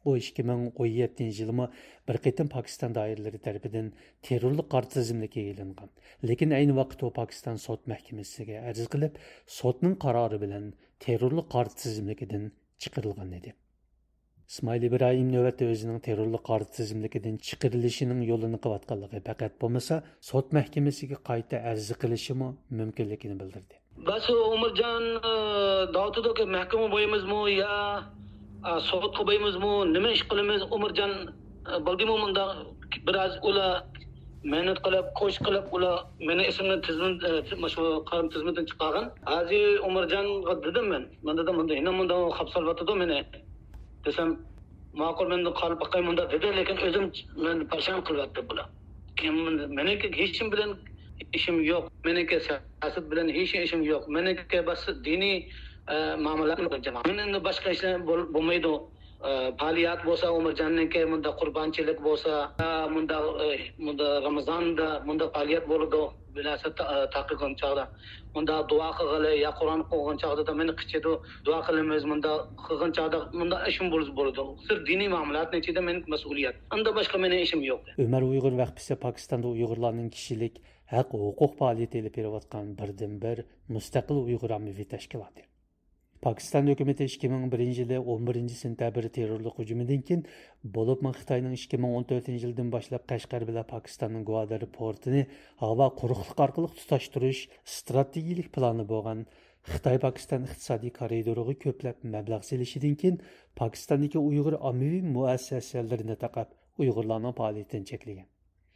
ئۇ ئىككى مىڭ ئون يەتتىنچى يىلىمۇ بىر قېتىم پاكىستان دائىرىلىرى تەرىپىدىن تېررورلۇق قارا تىزىملىكىگە ئېلىنغان. لېكىن ئەينى ۋاقىتتا ئۇ پاكىستان سوت مەھكىمىسىگە ئەرز قىلىپ، سوتنىڭ قارارى بىلەن تېررورلۇق قارا تىزىملىكىدىن چىقىرىلغان ئىدى. ئىسمائىل ئىبراھىم نۆۋەتتە ئۆزىنىڭ تېررورلۇق قارا تىزىملىكىدىن چىقىرىلىشىنىڭ يولىنى قىلىۋاتقانلىقى، پەقەت بولمىسا سوت مەھكىمىسىگە قايتا ئەرز قىلىشىمۇ مۇمكىنلىكىنى بىلدۈردى. بەس ئۆمەرجان، ئە، دەۋاتىدۇكى، مەھكىمىگە بېرىمىزمۇ يا، ئە، سوتقا بېرىمىزمۇ، نېمە ئىش قىلىمىز؟ ئۆمەرجان، ئە، بىلدىمۇ مۇنداق بىر ئاز ئۇلار مەنئەت قىلىپ، كوشۇش قىلىپ، ئۇلار مېنىڭ ئىسىمنى تىزىم-، ئە، مۇشۇ قارا تىزىمدىن چىقارغان. ھازىر ئۆمەرجانغا دېدىم مەن. مەن دېدىم، مۇنداق، يەنە مۇنداق خاپسالىۋاتىدۇ مېنى. دېسەم، ماقۇل، مەن قاراپ باقاي مۇنداق دېدى، لېكىن ئۆزۈم مەن پەرىشان قىلىۋەتتى بۇلار. كېيىن مېنىڭكى ھېچكىم بىلەن ئىشىم يوق، مېنىڭكى سىياسەت بىلەن ھېچ ئىشىم يوق، مېنىڭكى بەس دىنىي، ئە، مۇئامىلە قىلىدىغان جامائەت. مەن ئەمدى باشقا ئىشلار بول-، بولمايدۇ. ئە، پائالىيەت بولسا، ئۆمەرجاننىڭكى مۇنداق قۇربانچىلىق بولسا، ئە، مۇنداق، ئە، مۇنداق رامىزاندا مۇنداق پائالىيەت بولىدۇ. بىر نەرسە تا-، تارقىغان چاغدا، مۇنداق دۇئا قىلغىلى يا قۇرئان ئوقۇغان چاغدا مېنى قىچىدۇ، دۇئا قىلىمىز، مۇنداق قىلغان چاغدا مۇنداق ئىشىم بولسا بولىدۇ. سىرت دىنىي مۇئامىلاتنىڭ ئىچىدە مېنىڭ مەسئۇلىيەت. ئۇندىن باشقا مېنىڭ ئىشىم يوق. ئۆمەر ئۇيغۇر ۋەقپىسى پاكىستاندا ئۇيغۇرلارنىڭ كىشىلىك ھەق، ھوقۇق پائالىيىتى ئېلىپ بېرىۋاتقان بىردىنبىر مۇستەقىل ئۇيغۇر ئاممىۋى تەشكىلاتى. پاكىستان ھۆكۈمىتى ئىككى مىڭ بىرىنچى يىلى ئون بىرىنچى سېنتەبىر تېررورلۇق ھۇجۇمىدىن كېيىن، بولۇپمۇ خىتاينىڭ ئىككى مىڭ ئون تۆتىنچى يىلدىن باشلاپ قەشقەر بىلەن پاكىستاننىڭ گۋادار پورتىنى ھاۋا قۇرۇقلۇق ئارقىلىق تۇتاشتۇرۇش ئىستراتېگىيىلىك پىلانى بولغان خىتاي-پاكىستان ئىقتىسادىي كارىدورىغا كۆپلەپ مەبلەغ سېلىشىدىن كېيىن، پاكىستاندىكى ئۇيغۇر ئاممىۋى مۇئەسسەسەلىرىنى تاقاپ، ئۇيغۇرلارنىڭ پائالىيىتىنى چەكلىگەن.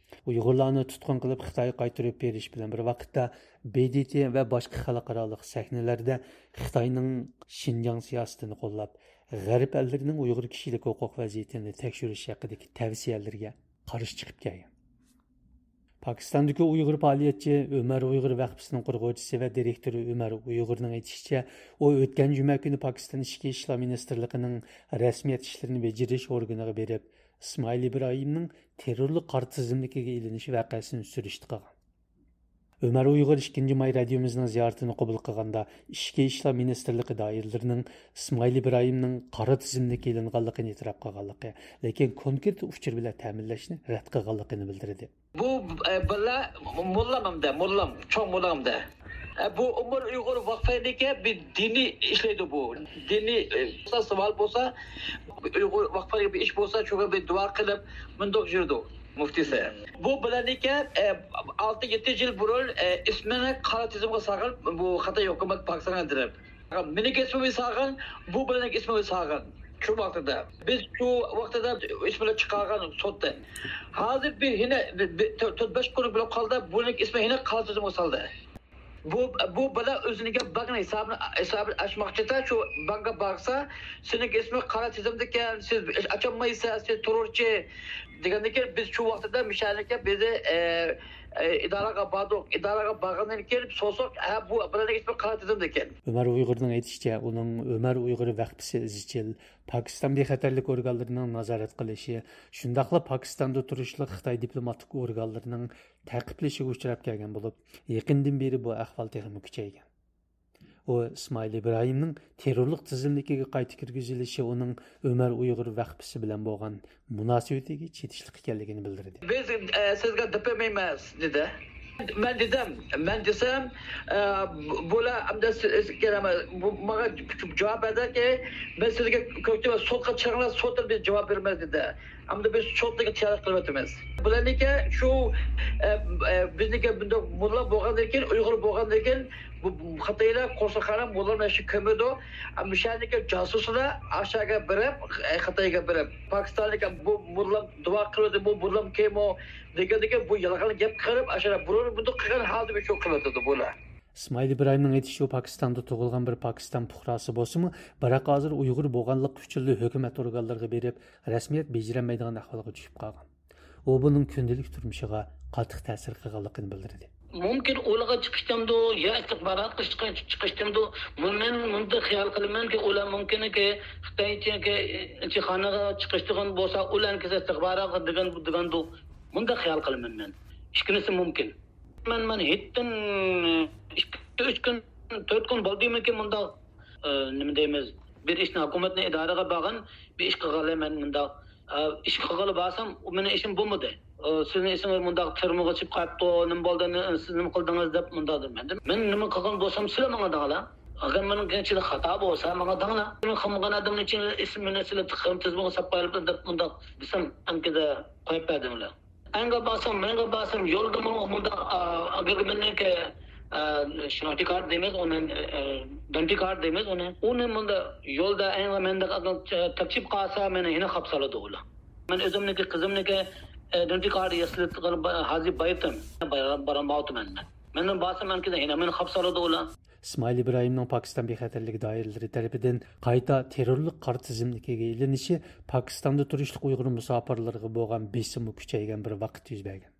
ئۇيغۇرلارنى تۇتقۇن قىلىپ خىتايغا قايتۇرۇپ بېرىش بىلەن بىر ۋاقىتتا، ب د ت ۋە باشقا خەلقئارالىق سەھنىلەردە خىتاينىڭ شىنجاڭ سىياسىتىنى قوللاپ، غەرب ئەللىرىنىڭ ئۇيغۇر كىشىلىك ھوقۇق ۋەزىيىتىنى تەكشۈرۈش ھەققىدىكى تەۋسىيەلىرىگە قارشى چىقىپ كەلگەن. پاكىستاندىكى ئۇيغۇر پائالىيەتچى، ئۆمەر ئۇيغۇر ۋەقپىسىنىڭ قۇرغۇچىسى ۋە دىرېكتورى ئۆمەر ئۇيغۇرنىڭ ئېيتىشىچە، ئۇ ئۆتكەن جۈمە كۈنى پاكىستان ئىچكى ئىشلار مىنىستىرلىقىنىڭ رەسمىيەت ئىشلىرىنى بېجىرىش ئورگىنىغا بېرىپ، ئىسمائىل ئىبراھىمنىڭ تېررورلۇق قارا تىزىملىكىگە ئېلىنىش ۋەقەسىنى سۈرۈشتە قىلغان. ئۆمەر ئۇيغۇر ئىككىنچى ماي رادىيومىزنىڭ زىيارىتىنى قوبۇل قىلغاندا، ئىچكى ئىشلار مىنىستىرلىقى دائىرىلىرىنىڭ ئىسمائىل ئىبراھىمنىڭ قارا تىزىملىككە ئېلىنغانلىقىنى ئېتىراپ قىلغانلىقى، لېكىن كونكرېت ئۇچۇر بىلەن تەمىنلەشنى رەت قىلغانلىقىنى بىلدۈردى. بۇ، ئە، باللا موللام ئەمدى، موللام، چوڭ موللام ئەمدى. ئە، بۇ ئۆمەر ئۇيغۇر ۋەقپىنىڭكى بىر دىنىي ئىشلەيدۇ بۇ. دىنىي، ئە، سوئال بولسا، ئۇيغۇر ۋەقپىگە بىر ئىش بولسا، شۇغا بىر دۇئا قىلىپ، مۇنداق يۈرىدۇ مۇفتىسى. بۇ بالىنىڭكى، ئە، ئالتە يەتتە يىل بۇرۇن، ئە، ئىسمىنى قارا تىزىمغا سالغان بۇ خىتاي ھۆكۈمەت پاكىستانغا دېرىپ. مېنىڭكى ئىسمىمنى سالغان، بۇ بالىنىڭكى ئىسمىنى سالغان. شۇ ۋاقتىدا. بىز شۇ ۋاقتىدا ئىسمىنى چىقارغان سوتتا. ھازىر بىر يەنە بىر، بىر تۆ-، تۆت بەش كۈن بولۇپ قالدى، بۇنىڭ ئىسمى يەنە قارا تىزىمغا سالدى. بۇ، بۇ بالا ئۆزىنىڭكى بانك ھېسابىنى، ھېسابىنى ئاچماقچىدا، شۇ بانكقا بارسا، سېنىڭكى ئىسمىڭ قارا تىزىمدىكەن، سىز ئاچالمايسىز، سىز تېررورچى دېگەندىن كېيىن، بىز شۇ ۋاقتىدا مىشەنىكە بىزنى، ئە، ئە، ئىدارىگە باردۇق. ئىدارىگە بارغاندىن كېيىن سورىساق، ھە، بۇ بالىنىڭ ئىسمى قارا تىزىمدىكەن. ئۆمەر ئۇيغۇرنىڭ ئېيتىشىچە، ئۇنىڭ ئۆمەر ئۇيغۇر ۋەقپىسى ئىزچىل پاكىستان بىخەتەرلىك ئورگانلىرىنىڭ نازارەت قىلىشى، شۇنداقلا پاكىستاندا تۇرۇشلۇق خىتاي دىپلوماتىك ئورگانلىرىنىڭ تەقىبلىشىگە ئۇچراپ كەلگەن بولۇپ، يېقىندىن بېرى بۇ ئەھۋال تېخىمۇ كۈچەيگەن. ئۇ ئىسمائىل ئىبراھىمنىڭ تېررورلۇق تىزىملىكىگە قايتا كىرگۈزۈلۈشى ئۇنىڭ ئۆمەر ئۇيغۇر ۋەقپىسى بىلەن بولغان مۇناسىۋىتىگە چېتىشلىق ئىكەنلىكىنى بىلدۈردى. بىز، ئە، سىزگە دەپ بەرمەيمىز، دېدى. مەن دېدىم، مەن دېسەم، ئە، بۇ-، بۇلار ئەمدى سىز، سىز كېلەمە-، بۇ، ماڭا جاۋاب بەردىكى، مەن سىزگە كۆرسىتىمەن، سوتقا چىقىڭلار، سوتتا بىز جاۋاب بېرىمىز، دېدى. ئەمدى بىز سوتنىڭكى تەييارلىق قىلىۋاتىمىز. بۇلارنىڭكى شۇ، ئە، ئە، بىزنىڭكى بۇنداق موللا بولغاندىن كېيىن، ئۇيغۇر بولغاندىن كېيىن، بۇ، بۇ خىتايلار قورساقخانا موللىنى ياخشى كۆرمەيدۇ. ئەمما شۇ يەردىكى جاسۇسلار ئاشۇ يەرگە بېرىپ، ئە، خىتايغا بېرىپ، پاكىستاننىڭكى بۇ موللام دۇئا قىلىۋاتىدۇ، بۇ موللام كىمۇ دېگەندىكى بۇ يالغان گەپ قىلىپ، ئاشۇ يەردە بۇرۇن بۇنداق قىلغان ھالدا شۇ قىلىۋاتىدۇ بۇلار. ئىسمائىل ئىبراھىمنىڭ ئېيتىشىچە، پاكىستاندا تۇغۇلغان بىر پاكىستان پۇقراسى بولسىمۇ، بىراق ھازىر ئۇيغۇر بولغانلىقى ئۈچۈنلا ھۆكۈمەت ئورگانلىرىغا بېرىپ، رەسمىيەت بېجىرەلمەيدىغان ئەھۋالغا چۈشۈپ قالغان. ئۇ بۇنىڭ كۈندىلىك تۇرمۇشىغا قاتتىق تەسىر قىلغانلىقىنى بىلدۈردى. مۇمكىن ئۇلارغا چىقىشتىمدۇ، يا ئىستىخباراتقا چىقىشتىمدۇ، مەن مۇنداق خىيال قىلىمەنكى، ئۇلار مۇمكىنكى خىتايچىكى ئىلچىخانىغا چىقىشتىغان بولسا، ئۇلارنىڭكى ئىستىخباراتقا دېگەن، دېگەندۇ، مۇنداق خىيال قىلىمەن مەن. ئىككىنچىسى مۇمكىن. مەن، مەن ھېيتتىن ئىككى، ئۈچ كۈن، تۆت كۈن بولدىمىكىن مۇنداق، ئە، نېمە دەيمىز، بىر ئىشنى، ھۆكۈمەتنى ئىدارىگە بارغان، بىر ئىش قىلغانلار مەن مۇنداق، ئە، ئىش قىلغىلى بارسام، ئۇ مېنىڭ ئىشىم بولمىدى. ئە، سىزنىڭ ئىشىڭىز مۇنداق تۈرمىگە چۈشۈپ قاپتۇ، نېمە بولدى، نې-، سىز نېمە قىلدىڭىز دەپ مۇنداق دېدى. مەن، مەن نېمە قىلغان بولسام، سىلەر ماڭا دەڭلار. ئەگەر مېنىڭ ئىچىدە خاتا بولسا، ماڭا دەڭلار. مېنىڭ قىلمىغان ئادەمنىڭ ئىچىدە ئىسمىنى سىلەر تىقىم تىزىمغا ساپ قويۇپلا دەپ مۇنداق دېسەم، ئەنكىدە قويۇپ بەردىڭلار. ئەنگە بارسام، مەنگە بارسام، يولدىمۇ مۇنداق، ئا، ئاگرېگمېنتنىڭكى، ئا، شۇ دەنتى كارت دەيمىز ئۇنى، ئا، دەنتى كارت دەيمىز ئۇنى. ئۇنى مۇنداق يولدا ئەنگە مەندە تاپچىپ قالسا، مېنى يەنە قاپسالىدۇ ئۇلار. مەن ئۆزۈمنىڭكى، قىزىمنىڭكى، ئا، دەنتى كارت ياسىلىپ ھازىر بايىتىم. بارالمايتتىم مەن. مەندىن بارسام، ئەنكىدە يەنە مېنى قاپسالىدۇ ئۇلار. ئىسمائىل ئىبراھىمنىڭ پاكىستان بىخەتەرلىك دائىرىلىرى تەرىپىدىن قايتا تېررورلۇق قارا تىزىملىكىگە ئېلىنىشى پاكىستاندا تۇرۇشلۇق ئۇيغۇر مۇساپىرلىرىغا بولغان بېسىممۇ كۈچەيگەن بىر ۋاقىتتا يۈز بەرگەن.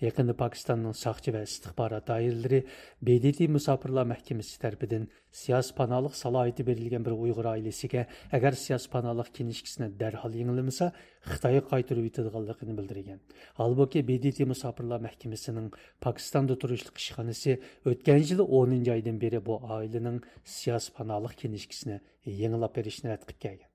يېقىندا پاكىستاننىڭ ساقچى ۋە ئىستىخبارات دائىرىلىرى ب د ت مۇساپىرلار مەھكىمىسى تەرىپىدىن سىياسىي پاناھلىق سالاھىيىتى بېرىلگەن بىر ئۇيغۇر ئائىلىسىگە ئەگەر سىياسىي پاناھلىق كىنىشكىسىنى دەرھال يېڭىلىمىسا، خىتايغا قايتۇرۇۋېتىدىغانلىقىنى بىلدۈرگەن. ھالبۇكى، ب د ت مۇساپىرلار مەھكىمىسىنىڭ پاكىستاندا تۇرۇشلۇق ئىشخانىسى ئۆتكەن يىلى ئونىنچى ئايدىن بېرى بۇ ئائىلىنىڭ سىياسىي پاناھلىق كىنىشكىسىنى يېڭىلاپ بېرىشنى رەت قىلىپ كەلگەن.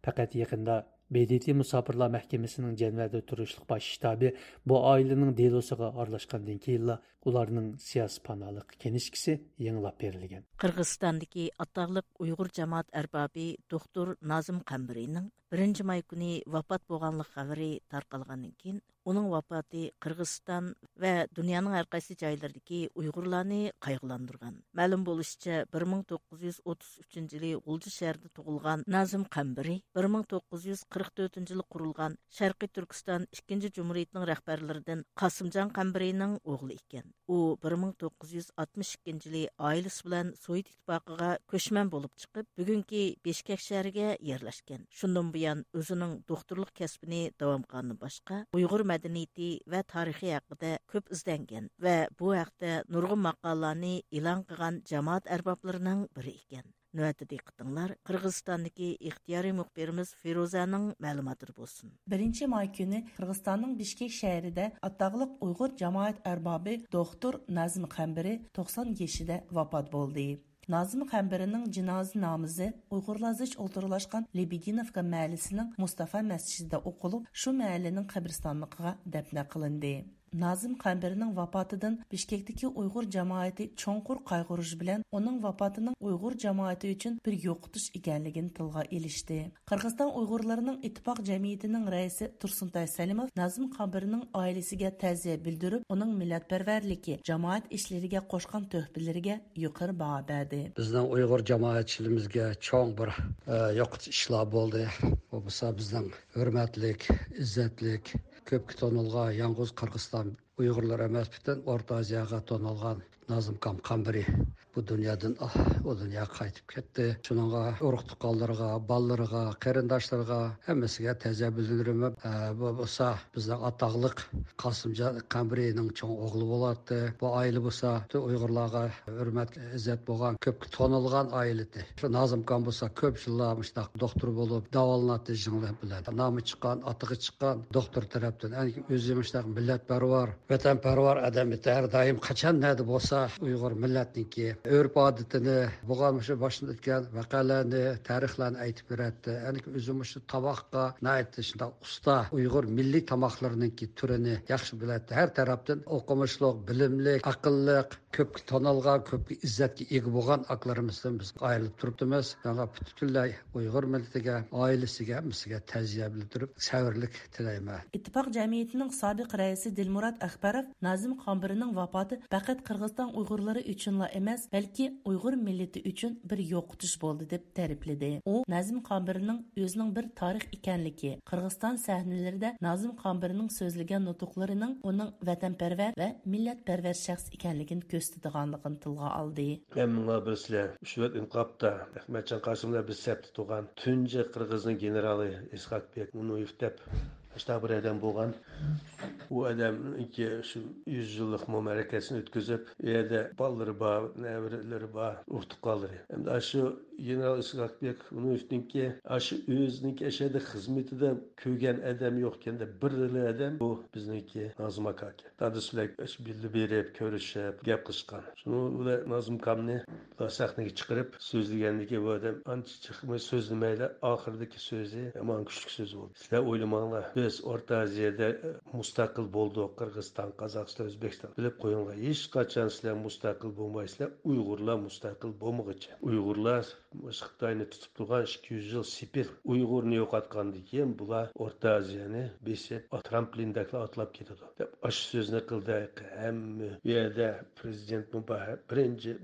پەقەت يېقىندا ب د ت مۇساپىرلار مەھكىمىسىنىڭ جەنۋەدە تۇرۇشلۇق باش شتابى بۇ ئائىلىنىڭ دېلوسىغا ئارىلاشقاندىن كېيىنلا ئۇلارنىڭ سىياسىي پاناھلىق كىنىشكىسى يېڭىلاپ بېرىلگەن. قىرغىزىستاندىكى ئاتاقلىق ئۇيغۇر جامائەت ئەربابى دوختۇر نازىم قەمبىرىنىڭ بىرىنچى ماي كۈنى ۋاپات بولغانلىق خەۋىرى تارقالغاندىن كېيىن، ئۇنىڭ ۋاپاتى قىرغىزىستان ۋە دۇنيانىڭ ھەر قايسى جايلىرىدىكى ئۇيغۇرلارنى قايغۇلاندۇرغان. مەلۇم بولۇشىچە، بىر مىڭ توققۇز يۈز ئوتتۇز ئۈچىنچى يىلى غۇلجا شەھىرىدە تۇغۇلغان نازىم قەمبىرى بىر مىڭ توققۇز يۈز قىرىق تۆتىنچى يىلى قۇرۇلغان شەرقىي تۈركىستان ئىككىنچى جۇمھۇرىيىتىنىڭ رەھبەرلىرىدىن قاسىمجان قەمبىرىنىڭ ئوغلى ئىكەن. ئۇ بىر مىڭ توققۇز يۈز ئاتمىش ئىككىنچى يىلى ئائىلىسى بىلەن سوۋېت ئىتتىپاقىغا كۆچمەن بولۇپ چىقىپ، بۈگۈنكى بىشكەك شەھىرىگە يەرلەشكەن. شۇندىن بۇيان ئۆزىنىڭ دوختۇرلۇق كەسپىنى داۋام قىلغاندىن باشقا، ئۇيغۇر مەدەنىيىتى ۋە تارىخى ھەققىدە كۆپ ئىزدەنگەن ۋە بۇ ھەقتە نۇرغۇن ماقالىلەرنى ئېلان قىلغان جامائەت ئەربابلىرىنىڭ بىرى ئىكەن. نۆۋەتتە دىققىتىڭلار قىرغىزىستاندىكى ئىختىيارىي مۇخبىرىمىز فىرۇزەنىڭ مەلۇماتىدا بولسۇن. بىرىنچى ماي كۈنى قىرغىزىستاننىڭ بىشكېك شەھىرىدە ئاتاقلىق ئۇيغۇر جامائەت ئەربابى دوختۇر نازىم قەمبىرى توقسان يېشىدا ۋاپات بولدى. نازىم قەمبىرىنىڭ جىنازا نامىزى ئۇيغۇرلار زىچ ئولتۇراقلاشقان لېبېدىنوۋكا مەھەللىسىنىڭ مۇستافا مەسچىتىدە ئوقۇلۇپ، شۇ مەھەللىنىڭ قەبرىستانلىقىغا دەپنە قىلىندى. نازىم قەمبىرىنىڭ ۋاپاتىدىن بىشكەكتىكى ئۇيغۇر جامائىتى چوڭقۇر قايغۇرۇش بىلەن، ئۇنىڭ ۋاپاتىنىڭ ئۇيغۇر جامائىتى ئۈچۈن بىر يوقىتىش ئىكەنلىكىنى تىلغا ئېلىشتى. قىرغىزىستان ئۇيغۇرلىرىنىڭ ئىتتىپاق جەمئىيىتىنىڭ رەئىسى تۇرسۇنتاي سەلىموف نازىم قەمبىرىنىڭ ئائىلىسىگە تەزىيە بىلدۈرۈپ، ئۇنىڭ مىللەتپەرۋەرلىكى، جامائەت ئىشلىرىغا قوشقان تۆھپىلىرىگە يۇقىرى باھا بەردى. بىزنىڭ ئۇيغۇر جامائەتچىلىرىمىزگە چوڭ بىر، ئە، يوقىتىش ئىشلار بولدى. بۇ بولسا بىزنىڭ ھۆرمەتلىك، ئىززەتلىك، كۆپكە تونۇلغان يالغۇز قىرغىزىستان ئۇيغۇرلىرى ئەمەس، پۈتۈن ئورتا ئازىياغا تونۇلغان نازىم قەمبىرى بۇ دۇنيادىن، ئاھ، ئۇ دۇنياغا قايتىپ كەتتى. شۇنىڭغا ئۇرۇق تۇغقانلىرىغا، بالىلىرىغا، قېرىنداشلىرىغا، ھەممىسىگە تەزىيە بىلدۈرىمەن. ئە، بۇ بولسا بىزنىڭ ئاتاقلىق قاسىمجان قەمبىرىنىڭ چوڭ ئوغلى بولاتتى. بۇ ئائىلە بولسا پۈتۈن ئۇيغۇرلارغا ھۆرمەت، ئىززەت بولغان، كۆپكە تونۇلغان ئائىلە ئىدى. شۇ نازىم قەمبىر بولسا كۆپ يىللار مۇشۇنداق دوختۇر بولۇپ داۋالىناتتى، يىڭنە بىلەن. نامى چىققان، ئاتىقى چىققان دوختۇر تەرەپتىن. ئەنكى ئۆزى مۇشۇنداق مىللەتپەرۋەر، ۋەتەنپەرۋەر ئادەم ئىدى. ھەر دائىم قاچان نەدە بولسا ئۇيغۇر مىللەتنىڭكى ئۆرپ-ئادىتىنى، بولغان مۇشۇ باشتىن ئۆتكەن ۋەقەلەرنى، تارىخلارنى ئېيتىپ بېرەتتى. ئەنكى ئۆزى مۇشۇ تاماققا ناھايىتى شۇنداق ئۇستا، ئۇيغۇر مىللىي تاماقلىرىنىڭكى تۈرىنى ياخشى بىلەتتى. ھەر تەرەپتىن ئوقۇمۇشلۇق، بىلىملىك، ئەقىللىق، كۆپكە تونۇلغان، كۆپكە ئىززەتكە ئىگە بولغان ئاكىلىرىمىزدىن بىز ئايرىلىپ تۇرۇپتىمىز. شۇڭا پۈتكۈنلەي ئۇيغۇر مىللىتىگە، ئائىلىسىگە، ھەممىسىگە تەزىيە بىلدۈرۈپ، سەۋرلىك تىلەيمەن. ئىتتىپاق جەمئىيىتىنىڭ سابىق رەئىسى دىلمۇرات ئەخبەروف نازىم قەمبىرىنىڭ ۋاپاتى پەقەت قىرغىزىستان ئۇيغۇرلىرى ئۈچۈنلا ئەمەس، بەلكى ئۇيغۇر مىللىتى ئۈچۈن بىر يوقىتىش بولدى، دەپ تەرىپلىدى. ئۇ نازىم قەمبىرىنىڭ ئۆزىنىڭ بىر تارىخ ئىكەنلىكى، قىرغىزىستان سەھنىلىرىدە نازىم قەمبىرىنىڭ سۆزلىگەن نۇتۇقلىرىنىڭ ئۇنىڭ ۋەتەنپەرۋەر ۋە مىللەتپەرۋەر شەخس ئىكەنلىكىنى كۆرسىتىدىغانلىقىنى تىلغا ئالدى. ھەممىڭلار بىلىسىلەر، ئۇشۇ ۋاقىت ئىنقىلابتا ئەخمەتجان قاسىم بىلەن بىر سەپتە تۇرغان تۇنجى قىرغىزنىڭ گېنېرالى ئىسھاق بېك مۇنۇيېف دەپ، شۇنداق بىر ئادەم بولغان. ئۇ ئادەمنىڭكى شۇ يۈز يىللىق مۇبارەكىسىنى ئۆتكۈزۈپ، ئۇ يەردە بالىلىرى بار، نەۋرىلىرى بار، ئۇرۇق تۇغقانلىرى. ئەمدى ئاشۇ گېنېرال ئىسھاق بېك مۇنۇيېفنىڭكى ئاشۇ ئۆزىنىڭكى ئەشەدە خىزمىتىدە كۆرگەن ئادەم يوق ئىكەن-دە، بىرلا ئادەم بۇ بىزنىڭكى نازىم ئاكا ئىكەن. دادىسى بىلەن بىللە بېرىپ، كۆرۈشۈپ، گەپ قىلىشقان. شۇنىڭ بىلەن نازىم ئاكامنى سەھنىگە چىقىرىپ سۆزلىگەندىكى بۇ ئادەم ئانچە جىقمۇ سۆزلىمەيلا، ئاخىرىدىكى سۆزى يامان كۈچلۈك سۆز بولدى. سىلەر ئويلىماڭلار، بىز ئورتا ئازىيەدە مۇستەقىل بولدۇق، قىرغىزىستان، قازاقىستان، ئۆزبېكىستان. بىلىپ قويۇڭلار، ھېچقاچان سىلەر مۇستەقىل بولمايسىلەر، ئۇيغۇرلار مۇستەقىل بولمىغۇچە. ئۇيغۇرلار مۇشۇ خىتاينى تۇتۇپ تۇرغان ئىككى يۈز يىل سېپىل ئۇيغۇرنى يوقاتقاندىن كېيىن، بۇلار ئورتا ئازىيەنى بېسىپ، ترامپلىندەكلا ئاتلاپ كېتىدۇ، دەپ ئاشۇ سۆزنى قىلدى. ھەممە ئۇ يەردە پرېزىدېنتمۇ بار، بىرىنچى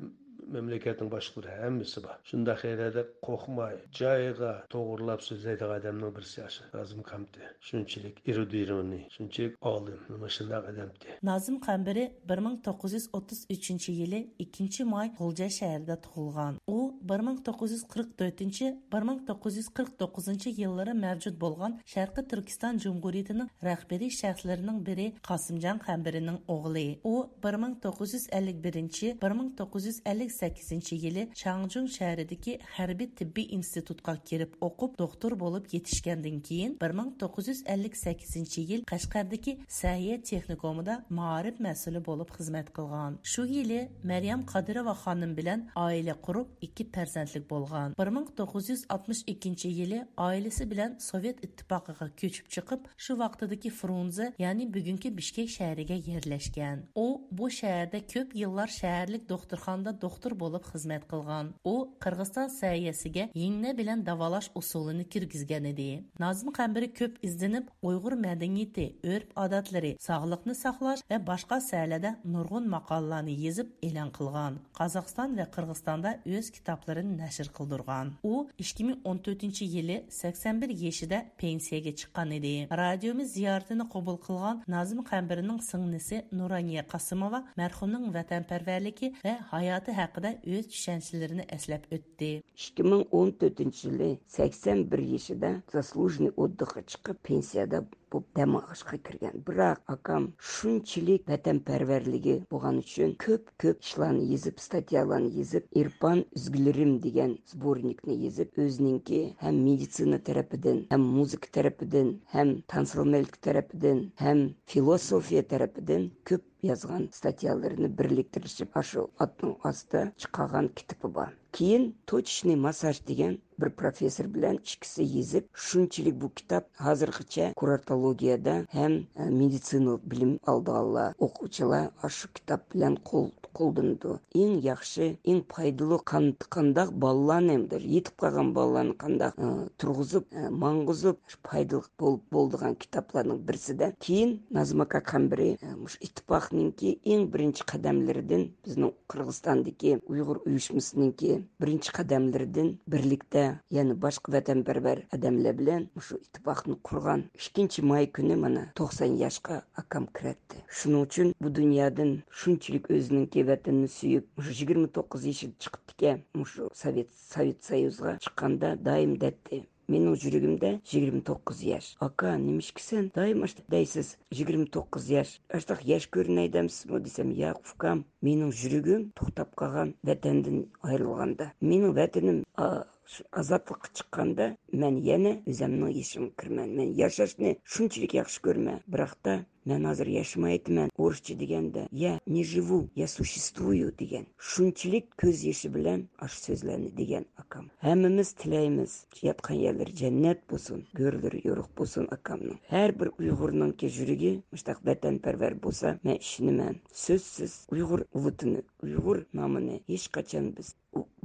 مەملىكەتنىڭ باشلىقلىرى ھەممىسى بار. شۇنداق يەردە قورقماي، جايىغا توغرىلاپ سۆزلەيدىغان ئادەمنىڭ بىرسى ئاشۇ نازىم كامتى. شۇنچىلىك ئېرۇدىرونى، شۇنچىلىك ئالىم، مانا شۇنداق ئادەمتى. نازىم قەمبىرى بىر مىڭ توققۇز يۈز ئوتتۇز ئۈچىنچى يىلى ئىككىنچى ماي غۇلجا شەھىرىدە تۇغۇلغان. ئۇ بىر مىڭ توققۇز يۈز قىرىق تۆتىنچى، بىر مىڭ توققۇز يۈز قىرىق توققۇزىنچى يىللىرى مەۋجۇت بولغان شەرقىي تۈركىستان جۇمھۇرىيىتىنىڭ رەھبىرىي شەخسلىرىنىڭ بىرى قاسىمجان قەمبىرىنىڭ ئوغلى. ئۇ بىر مىڭ توققۇز يۈز ئەللىك بىرىنچى، بىر مىڭ توققۇز يۈز ئەللىك سەككىزىنچى يىلى چاڭجۇڭ شەھىرىدىكى ھەربىي تېببىي ئىنستىتۇتقا كىرىپ ئوقۇپ، دوختۇر بولۇپ يېتىشكەندىن كېيىن، بىر مىڭ توققۇز يۈز ئەللىك سەككىزىنچى يىل قەشقەردىكى سەھىيە تېخنىكومىدا مائارىپ مەسئۇلى بولۇپ خىزمەت قىلغان. شۇ يىلى مەريەم قادىروۋا خانىم بىلەن ئائىلە قۇرۇپ، ئىككى پەرزەنتلىك بولغان. بىر مىڭ توققۇز يۈز ئاتمىش ئىككىنچى يىلى ئائىلىسى بىلەن سوۋېت ئىتتىپاقىغا كۆچۈپ چىقىپ، شۇ ۋاقتىدىكى فرۇنزې، يەنى بۈگۈنكى بىشكېك شەھىرىگە يەرلەشكەن. ئۇ بۇ شەھەردە كۆپ يىللار شەھەرلىك دوختۇرخانىدا دوختۇر بولۇپ خىزمەت قىلغان. ئۇ قىرغىزىستان سەھىيەسىگە يىڭنە بىلەن داۋالاش ئۇسۇلىنى كىرگۈزگەن ئىدى. نازىم قەمبىرى كۆپ ئىزدىنىپ، ئۇيغۇر مەدەنىيىتى، ئۆرپ-ئادەتلىرى، ساغلىقنى ساقلاش ۋە باشقا ساھەلەردە نۇرغۇن ماقالىلەرنى يېزىپ ئېلان قىلغان. قازاقىستان ۋە قىرغىزىستاندا ئۆز كىتابلىرىنى نەشر قىلدۇرغان. ئۇ ئىككى مىڭ ئون تۆتىنچى يىلى سەكسەن بىر يېشىدا پېنسىيەگە چىققان ئىدى. رادىيومىز زىيارىتىنى قوبۇل قىلغان نازىم قەمبىرىنىڭ سىڭلىسى نۇرانىيە قاسىموۋا مەرھۇمنىڭ ۋەتەنپەرۋەرلىكى ۋە ھاياتى ھەققىدە ئۆز چۈشەنچىلىرىنى ئەسلەپ ئۆتتى. ئىككى مىڭ ئون تۆتىنچى يىلى سەكسەن بىر يېشىدا زاسلۇژنىي ئوتدۇخقا چىقىپ، پېنسىيەدە بولۇپ دەم ئېلىشقا كىرگەن. بىراق ئاكام شۇنچىلىك ۋەتەنپەرۋەرلىكى بولغان ئۈچۈن كۆپ، كۆپ ئىشلارنى يېزىپ، ستاتيالارنى يېزىپ، ئېرپان ئۈزگۈلىرىم دېگەن سبورنىكنى يېزىپ، ئۆزىنىڭكى ھەم مېدىتسىنا تەرىپىدىن، ھەم مۇزىكا تەرىپىدىن، ھەم تانسىلمەلىك تەرىپىدىن، ھەم فىلوسوفىيە تەرىپىدىن كۆپ يازغان ستاتيالىرىنى بىرلىكتۈرۈشۈپ، ئاشۇ ئاتنىڭ ئاستىدا چىقارغان كىتابى بار. كېيىن توچىچنىي ماسساژ دېگەن بىر پروفېسسور بىلەن ئىككىسى يېزىپ، شۇنچىلىك بۇ كىتاب ھازىرغىچە كۇراتولوگىيەدە ھەم، ئە، مېدىتسىنا بىلىم ئالىدىغانلار، ئوقۇغۇچىلار ئاشۇ كىتاب بىلەن قول-، قوللىنىدۇ. ئەڭ ياخشى، ئەڭ پايدىلىق قان-، قانداق بالىلارنى، يېتىپ قالغان بالىلارنى قانداق، ئە، تۇرغۇزۇپ، ئە، ماڭغۇزۇپ، شۇ پايدىلىق بول-، بولىدىغان كىتابلارنىڭ بىرسىدە. كېيىن نازىم ئاكا قەمبىرى، ئە، مۇشۇ ئىتتىپاقنىڭكى ئەڭ بىرىنچى قەدەملىرىدىن بىزنىڭ قىرغىزىستاندىكى ئۇيغۇر ئۇيۇشمىسىنىڭكى بىرىنچى قەدەملىرىدىن بىرلىكتە يەنە باشقا ۋەتەنپەرۋەر ئادەملەر بىلەن مۇشۇ ئىتتىپاقنى قۇرغان. ئىككىنچى ماي كۈنى مانا توقسان ياشقا ئاكام كىرەتتى. شۇنىڭ ئۈچۈن بۇ دۇنيادىن شۇنچىلىك ئۆزىنىڭكى ۋەتىنىنى سۆيۈپ، مۇشۇ يىگىرمە توققۇز يېشىدا چىقىپتىكەن، مۇشۇ سوۋېت، سوۋېت سويۇزىغا چىققاندا دائىم دەيتتى. مېنىڭ يۈرىكىمدە يىگىرمە توققۇز ياش. ئاكا، نېمىشقا سەن دائىم ئاشۇنداق دەيسىز؟ يىگىرمە توققۇز ياش. ئاشۇنداق ياش كۆرۈنەي دەمسىزمۇ دېسەم، ياق ئۇكام، مېنىڭ يۈرىكىم توختاپ قالغان ۋەتەندىن ئايرىلغاندا. مېنىڭ ۋەتىنىم، ئا، شۇ ئازادلىققا چىققاندا مەن يەنە ئۆزەمنىڭ يېشىمغا كىرىمەن. مەن ياشاشنى شۇنچىلىك ياخشى كۆرىمەن. بىراقتا مەن ھازىر ياشىمايتىمەن. ئورۇسچە دېگەندە، «Я не живу, я существую» دېگەن. شۇنچىلىك كۆز يېشى بىلەن ئاشۇ سۆزلەرنى دېگەن ئاكام. ھەممىمىز تىلەيمىز، ياتقان يەرلىرى جەننەت بولسۇن، گۆرلىرى يورۇق بولسۇن ئاكامنىڭ. ھەر بىر ئۇيغۇرنىڭكى يۈرىكى مۇشۇنداق ۋەتەنپەرۋەر بولسا، مەن ئىشىنىمەن. سۆزسىز ئۇيغۇر ۋەتىنى، ئۇيغۇر نامىنى ھېچقاچان بىز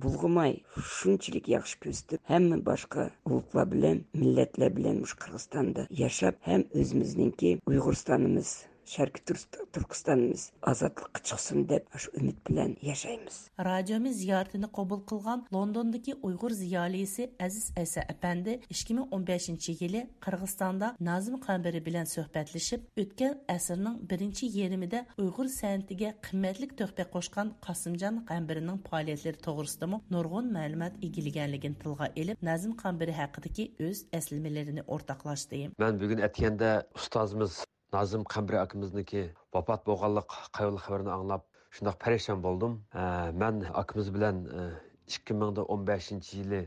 بۇلغىماي، شۇنچىلىك ياخشى كۆرسىتىپ، ھەممە باشقا ئۇلۇغلار بىلەن، مىللەتلەر بىلەن مۇشۇ قىرغىزىستاندا ياشاپ، ھەم ئۆزىمىزنىڭكى ئۇيغۇرىستانىمىز، شەرقىي تۈركىست-، تۈركىستانىمىز ئازادلىققا چىقسۇن دەپ، شۇ ئۈمىد بىلەن ياشايمىز. رادىيومىز زىيارىتىنى قوبۇل قىلغان لوندوندىكى ئۇيغۇر زىيالىيسى ئەزىز ئەيسا ئەپەندى ئىككى مىڭ ئون بەشىنچى يىلى قىرغىزىستاندا نازىم قەمبىرى بىلەن سۆھبەتلىشىپ، ئۆتكەن ئەسىرنىڭ بىرىنچى يېرىمىدە ئۇيغۇر سەنئىتىگە قىممەتلىك تۆھپە قوشقان قاسىمجان قەمبىرىنىڭ پائالىيەتلىرى توغرىسىدىمۇ نۇرغۇن مەلۇمات ئىگىلىگەنلىكىنى تىلغا ئېلىپ، نازىم قەمبىرى ھەققىدىكى ئۆز ئەسلىمىلىرىنى ئورتاقلاشتى. مەن بۈگۈن ئەتىگەندە ئۇستازىمىز نازىم قەمبىرى ئاكىمىزنىڭكى ۋاپات بولغانلىق قايغۇلۇق خەۋىرىنى ئاڭلاپ، شۇنداق پەرىشان بولدۇم. ئە، مەن ئاكىمىز بىلەن، ئە، ئىككى مىڭ ئون بەشىنچى يىلى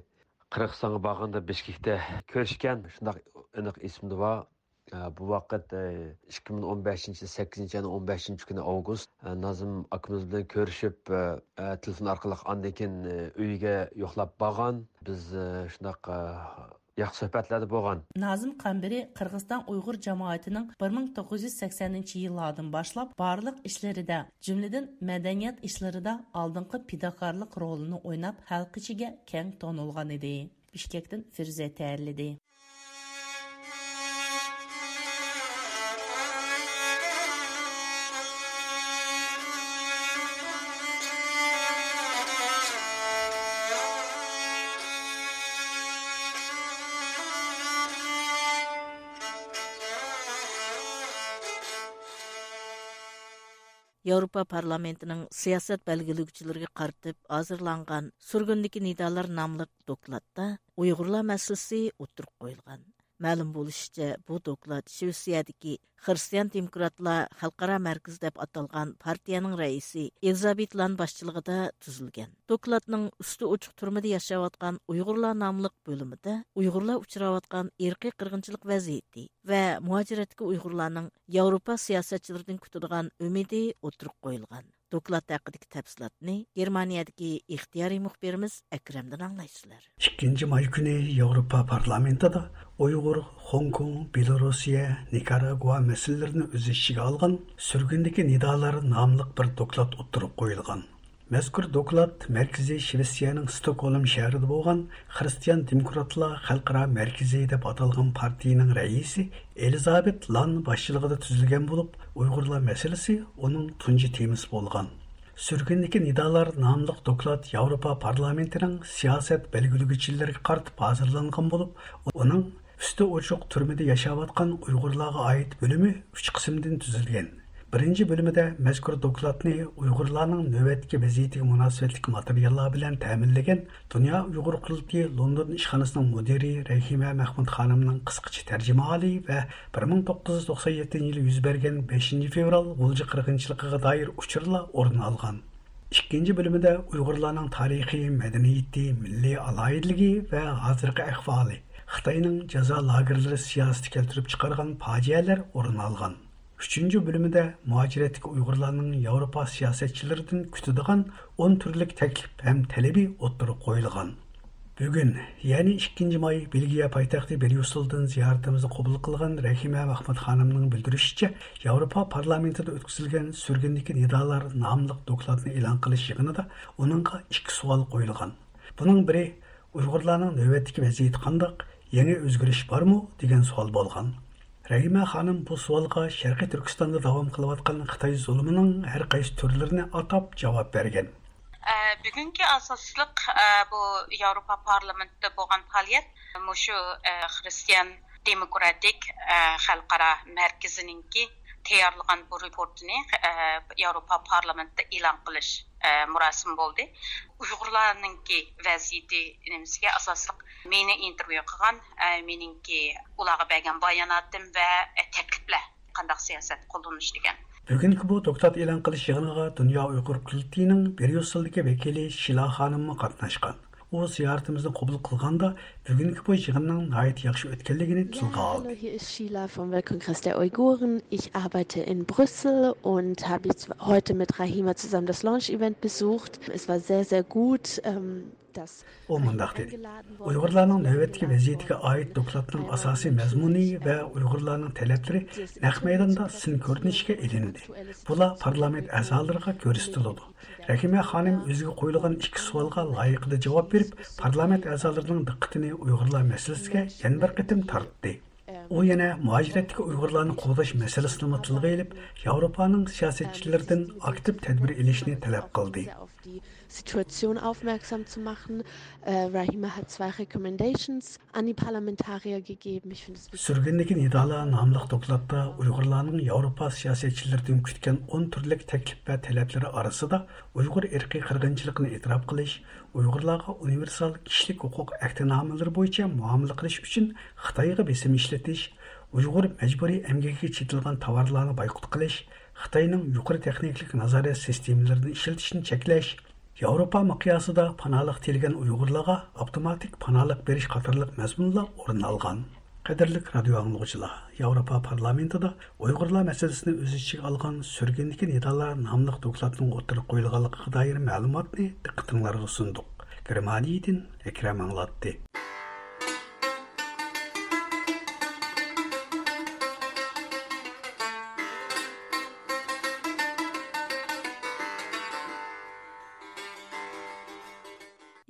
قىرغىزىستانغا بارغاندا بىشكېكتە كۆرۈشكەن، شۇنداق ئېنىق ئېسىمدە بار. ئە، بۇ ۋاقىت، ئە، ئىككى مىڭ ئون بەشىنچى يىل سەككىزىنچى ئاينىڭ ئون بەشىنچى كۈنى ئاۋغۇست. ئە، نازىم ئاكىمىز بىلەن كۆرۈشۈپ، ئە، ئە، تېلېفون ئارقىلىق ئاندىن كېيىن، ئە، ئۆيىگە يوقلاپ بارغان. بىز، ئە، شۇنداق، ئە، ياخشى سۆھبەتلەردە بولغان. نازىم قەمبىرى قىرغىزىستان ئۇيغۇر جامائىتىنىڭ بىر مىڭ توققۇز يۈز سەكسەنىنچى يىللاردىن باشلاپ بارلىق ئىشلىرىدا، جۈملىدىن مەدەنىيەت ئىشلىرىدا ئالدىنقى پىداكارلىق رولىنى ئويناپ، خەلق ئىچىگە كەڭ تونۇلغان ئىدى. بىشكەكتىن فىرۇزە تەييارلىدى. ياۋروپا پارلامېنتىنىڭ سىياسەت بەلگىلىگۈچىلىرىگە قارىتىپ ھازىرلانغان سۈرگۈندىكى نىدالار ناملىق دوكلاتتا ئۇيغۇرلار مەسىلىسى ئوتتۇرىغا قويۇلغان. مەلۇم بولۇشىچە، بۇ دوكلات شىۋېتسىيەدىكى خىرىستىيان دېموكراتلار خەلقئارا مەركىزى دەپ ئاتالغان پارتىيەنىڭ رەئىسى ئېلىزابېت لان باشچىلىقىدا تۈزۈلگەن. دوكلاتنىڭ ئۈستى ئوچۇق تۈرمىدە ياشاۋاتقان ئۇيغۇرلار ناملىق بۆلۈمىدە ئۇيغۇرلار ئۇچراۋاتقان ئىرقىي قىرغىنچىلىق ۋەزىيىتى ۋە مۇھاجىرەتتىكى ئۇيغۇرلارنىڭ ياۋروپا سىياسەتچىلىرىدىن كۈتىدىغان ئۈمىدى ئوتتۇرىغا قويۇلغان. دوكلات ھەققىدىكى تەپسىلاتنى گېرمانىيەدىكى ئىختىيارىي مۇخبىرىمىز ئەكرەمدىن ئاڭلايسىلەر. ئىككىنچى ماي كۈنى ياۋروپا پارلامېنتىدا ئۇيغۇر، خوڭكوڭ، بېلوروسىيە، نىكاراگۇا مەسىلىلىرىنى ئۆز ئىچىگە ئالغان سۈرگۈندىكى نىدالار ناملىق بىر دوكلات ئوتتۇرىغا قويۇلغان. مەزكۇر دوكلات مەركىزى شىۋېتسىيەنىڭ ستوكھولم شەھىرىدە بولغان خىرىستىيان دېموكراتلار خەلقئارا مەركىزى دەپ ئاتالغان پارتىيىنىڭ رەئىسى ئېلىزابېت لان باشچىلىقىدا تۈزۈلگەن بولۇپ، ئۇيغۇرلار مەسىلىسى ئۇنىڭ تۇنجى تېمىسى بولغان. سۈرگۈندىكى نىدالار ناملىق دوكلات ياۋروپا پارلامېنتىنىڭ سىياسەت بەلگىلىگۈچىلىرىگە قارىتىپ ھازىرلانغان بولۇپ، ئۇنىڭ ئۈستى ئوچۇق تۈرمىدە ياشاۋاتقان ئۇيغۇرلارغا ئائىت بۆلۈمى ئۈچ قىسىمدىن تۈزۈلگەن. بىرىنچى بۆلۈمىدە مەزكۇر دوكلاتنى ئۇيغۇرلارنىڭ نۆۋەتتىكى ۋەزىيىتىگە مۇناسىۋەتلىك ماتېرىياللار بىلەن تەمىنلىگەن دۇنيا ئۇيغۇر قۇرۇلتىيى لوندون ئىشخانىسىنىڭ مۇدىرى رەھىمە مەخمۇت خانىمنىڭ قىسقىچە تەرجىمىھالى ۋە بىر مىڭ توققۇز يۈز توقسان يەتتىنچى يىلى يۈز بەرگەن بەشىنچى فېۋرال غۇلجا قىرغىنچىلىقىغا دائىر ئۇچۇرلار ئورۇن ئالغان. ئىككىنچى بۆلۈمىدە ئۇيغۇرلارنىڭ تارىخى، مەدەنىيىتى، مىللىي ئالاھىدىلىكى ۋە ھازىرقى ئەھۋالى، خىتاينىڭ جازا لاگېرلىرى سىياسىتى كەلتۈرۈپ چىقارغان پاجىئەلەر ئورۇن ئالغان. ئۈچىنچى بۆلۈمىدە مۇھاجىرەتتىكى ئۇيغۇرلارنىڭ ياۋروپا سىياسەتچىلىرىدىن كۈتىدىغان ئون تۈرلۈك تەكلىپ ھەم تەلىپى ئوتتۇرىغا قويۇلغان. بۈگۈن، يەنى ئىككىنچى ماي، بېلگىيە پايتەختى بريۇسسېلدىن زىيارىتىمىزنى قوبۇل قىلغان رەھىمە مەخمۇت خانىمنىڭ بىلدۈرۈشىچە، ياۋروپا پارلامېنتىدا ئۆتكۈزۈلگەن سۈرگۈندىكى نىدالار ناملىق دوكلاتنى ئېلان قىلىش يىغىنىدا ئۇنىڭغا ئىككى سوئال قويۇلغان. بۇنىڭ بىرى، ئۇيغۇرلارنىڭ نۆۋەتتىكى ۋەزىيىتى قانداق، يېڭى ئۆزگىرىش بارمۇ دېگەن سوئال بولغان. رەھىمە خانىم بۇ سوئالغا شەرقىي تۈركىستاندا داۋام قىلىۋاتقان خىتاي زۇلۇمىنىڭ ھەر قايسى تۈرلىرىنى ئاتاپ جاۋاب بەرگەن. ئە، بۈگۈنكى ئاساسلىق، ئە، بۇ ياۋروپا پارلامېنتىدا بولغان پائالىيەت مۇشۇ، ئە، خىرىستىيان دېموكراتىك، ئە، خەلقئارا مەركىزىنىڭكى تەييارلىغان بۇ رېپورتىنى، ئە، ياۋروپا پارلامېنتىدا ئېلان قىلىش، ئە، مۇراسىمى بولدى. ئۇيغۇرلارنىڭكى ۋەزىيىتى نېمىسىگە ئاساسلىق مېنى ئىنتېرۋيۇ قىلغان، ئە، مېنىڭكى ئۇلارغا بەرگەن باياناتىم ۋە، ئە، تەكلىپلەر، قانداق سىياسەت قوللىنىش دېگەن. بۈگۈنكى بۇ دوكلات ئېلان قىلىش يىغىنىغا دۇنيا ئۇيغۇر قۇرۇلتىيىنىڭ بريۇسسېلدىكى ۋەكىلى شىلا خانىممۇ قاتناشقان. ئۇ زىيارىتىمىزنى قوبۇل قىلغاندا، بۈگۈنكى بۇ يىغىننىڭ ناھايىتى ياخشى ئۆتكەنلىكىنى تىلغا ئالدى. Hallo, hier ist Sheila vom Weltkongress der Uiguren. Ich arbeite in Brüssel und habe jetzt heute mit Rahima zusammen das Launch-Event besucht. Es war sehr, sehr gut. Ähm, ئۇ مۇنداق دېدى: ئۇيغۇرلارنىڭ نۆۋەتتىكى ۋەزىيىتىگە ئائىت دوكلاتنىڭ ئاساسىي مەزمۇنى ۋە ئۇيغۇرلارنىڭ تەلەپلىرى نەق مەيداندا سىن كۆرۈنۈشكە ئېلىندى. بۇلار پارلامېنت ئەزالىرىغا كۆرسىتىلىدۇ. رەھىمە خانىم ئۆزىگە قويۇلغان ئىككى سوئالغا لايىقىدا جاۋاب بېرىپ، پارلامېنت ئەزالىرىنىڭ دىققىتىنى ئۇيغۇرلار مەسىلىسىگە يەنە بىر قېتىم تارتتى. ئۇ يەنە مۇھاجىرەتتىكى ئۇيغۇرلارنى قوغداش مەسىلىسىنىمۇ تىلغا ئېلىپ، ياۋروپانىڭ سىياسەتچىلىرىدىن ئاكتىپ تەدبىر ئېلىشنى تەلەپ قىلدى. Situation aufmerksam zu machen. Äh, Rahima hat zwei Recommendations an die Parlamentarier gegeben. Ich finde es wichtig. سۈرگۈندىكى نىدالار ناملىق دوكلاتتا ئۇيغۇرلارنىڭ ياۋروپا سىياسەتچىلىرىدىن كۈتكەن ئون تۈرلۈك تەكلىپ ۋە تەلەپلىرى ئارىسىدا ئۇيغۇر ئىرقىي قىرغىنچىلىقىنى ئېتىراپ قىلىش، ئۇيغۇرلارغا ئۇنىۋېرسال كىشىلىك ھوقۇق ئەھدىنامىلىرى بويىچە مۇئامىلە قىلىش ئۈچۈن خىتايغا بېسىم ئىشلىتىش، ئۇيغۇر مەجبۇرىي ئەمگىكىگە چېتىلغان تاۋارلارنى بايقۇت قىلىش، خىتاينىڭ يۇقىرى تېخنىكىلىق نازارەت سىستېمىلىرىنى ئىشلىتىشنى چەكلەش، ياۋروپا مىقياسىدا پاناھلىق تىلىگەن ئۇيغۇرلارغا ئاپتوماتىك پاناھلىق بېرىش قاتارلىق مەزمۇنلار ئورۇن ئالغان. قەدىرلىك رادىيو ئاڭلىغۇچىلار، ياۋروپا پارلامېنتىدا ئۇيغۇرلار مەسىلىسىنى ئۆز ئىچىگە ئالغان سۈرگۈندىكى نىدالار ناملىق دوكلاتنىڭ ئوتتۇرىغا قويۇلغانلىقىغا دائىر مەلۇماتنى دىققىتىڭلارغا سۇندۇق. گېرمانىيەدىن ئەكرەم ئاڭلاتتى.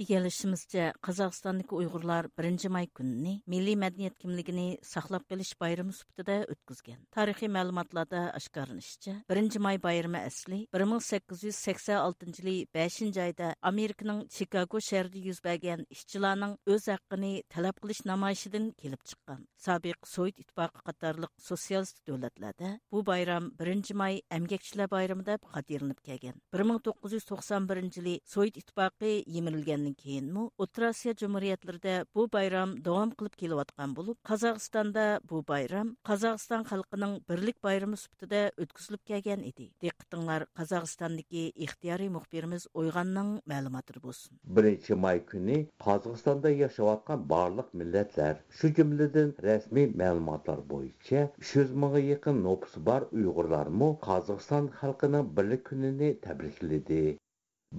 ئىگىلىشىمىزچە، قازاقىستاندىكى ئۇيغۇرلار بىرىنچى ماي كۈنىنى مىللىي مەدەنىيەت كىملىكىنى ساقلاپ قېلىش بايرىمى سۈپىتىدە ئۆتكۈزگەن. تارىخىي مەلۇماتلاردا ئاشكارىلىنىشىچە، بىرىنچى ماي بايرىمى ئەسلى بىر مىڭ سەككىز يۈز سەكسەن ئالتىنچى يىلى بەشىنچى ئايدا ئامېرىكىنىڭ چىكاگو شەھىرىدە يۈز بەرگەن ئىشچىلارنىڭ ئۆز ھەققىنى تەلەپ قىلىش نامايىشىدىن كېلىپ چىققان. سابىق سوۋېت ئىتتىپاقى قاتارلىق سوتسىيالىستىك دۆلەتلەردە بۇ بايرام بىرىنچى ماي ئەمگەكچىلەر بايرىمى دەپ خاتىرىلىنىپ كەلگەن. بىر مىڭ توققۇز يۈز توقسان بىرىنچى يىلى سوۋېت ئىتتىپاقى يىمىرىلگەندىن كېيىنمۇ ئوتتۇرا ئاسىيا جۇمھۇرىيەتلىرىدە بۇ بايرام داۋام قىلىپ كېلىۋاتقان بولۇپ، قازاقىستاندا بۇ بايرام قازاقىستان خەلقىنىڭ بىرلىك بايرىمى سۈپىتىدە ئۆتكۈزۈلۈپ كەلگەن ئىدى. دىققىتىڭلار قازاقىستاندىكى ئىختىيارىي مۇخبىرىمىز ئويغاننىڭ مەلۇماتىدا بولسۇن. بىرىنچى ماي كۈنى قازاقىستاندا ياشاۋاتقان بارلىق مىللەتلەر، شۇ جۈملىدىن رەسمىي مەلۇماتلار بويىچە ئۈچ يۈز مىڭغا يېقىن نوپۇسى بار ئۇيغۇرلارمۇ قازاقىستان خەلقىنىڭ بىرلىك كۈنىنى تەبرىكلىدى.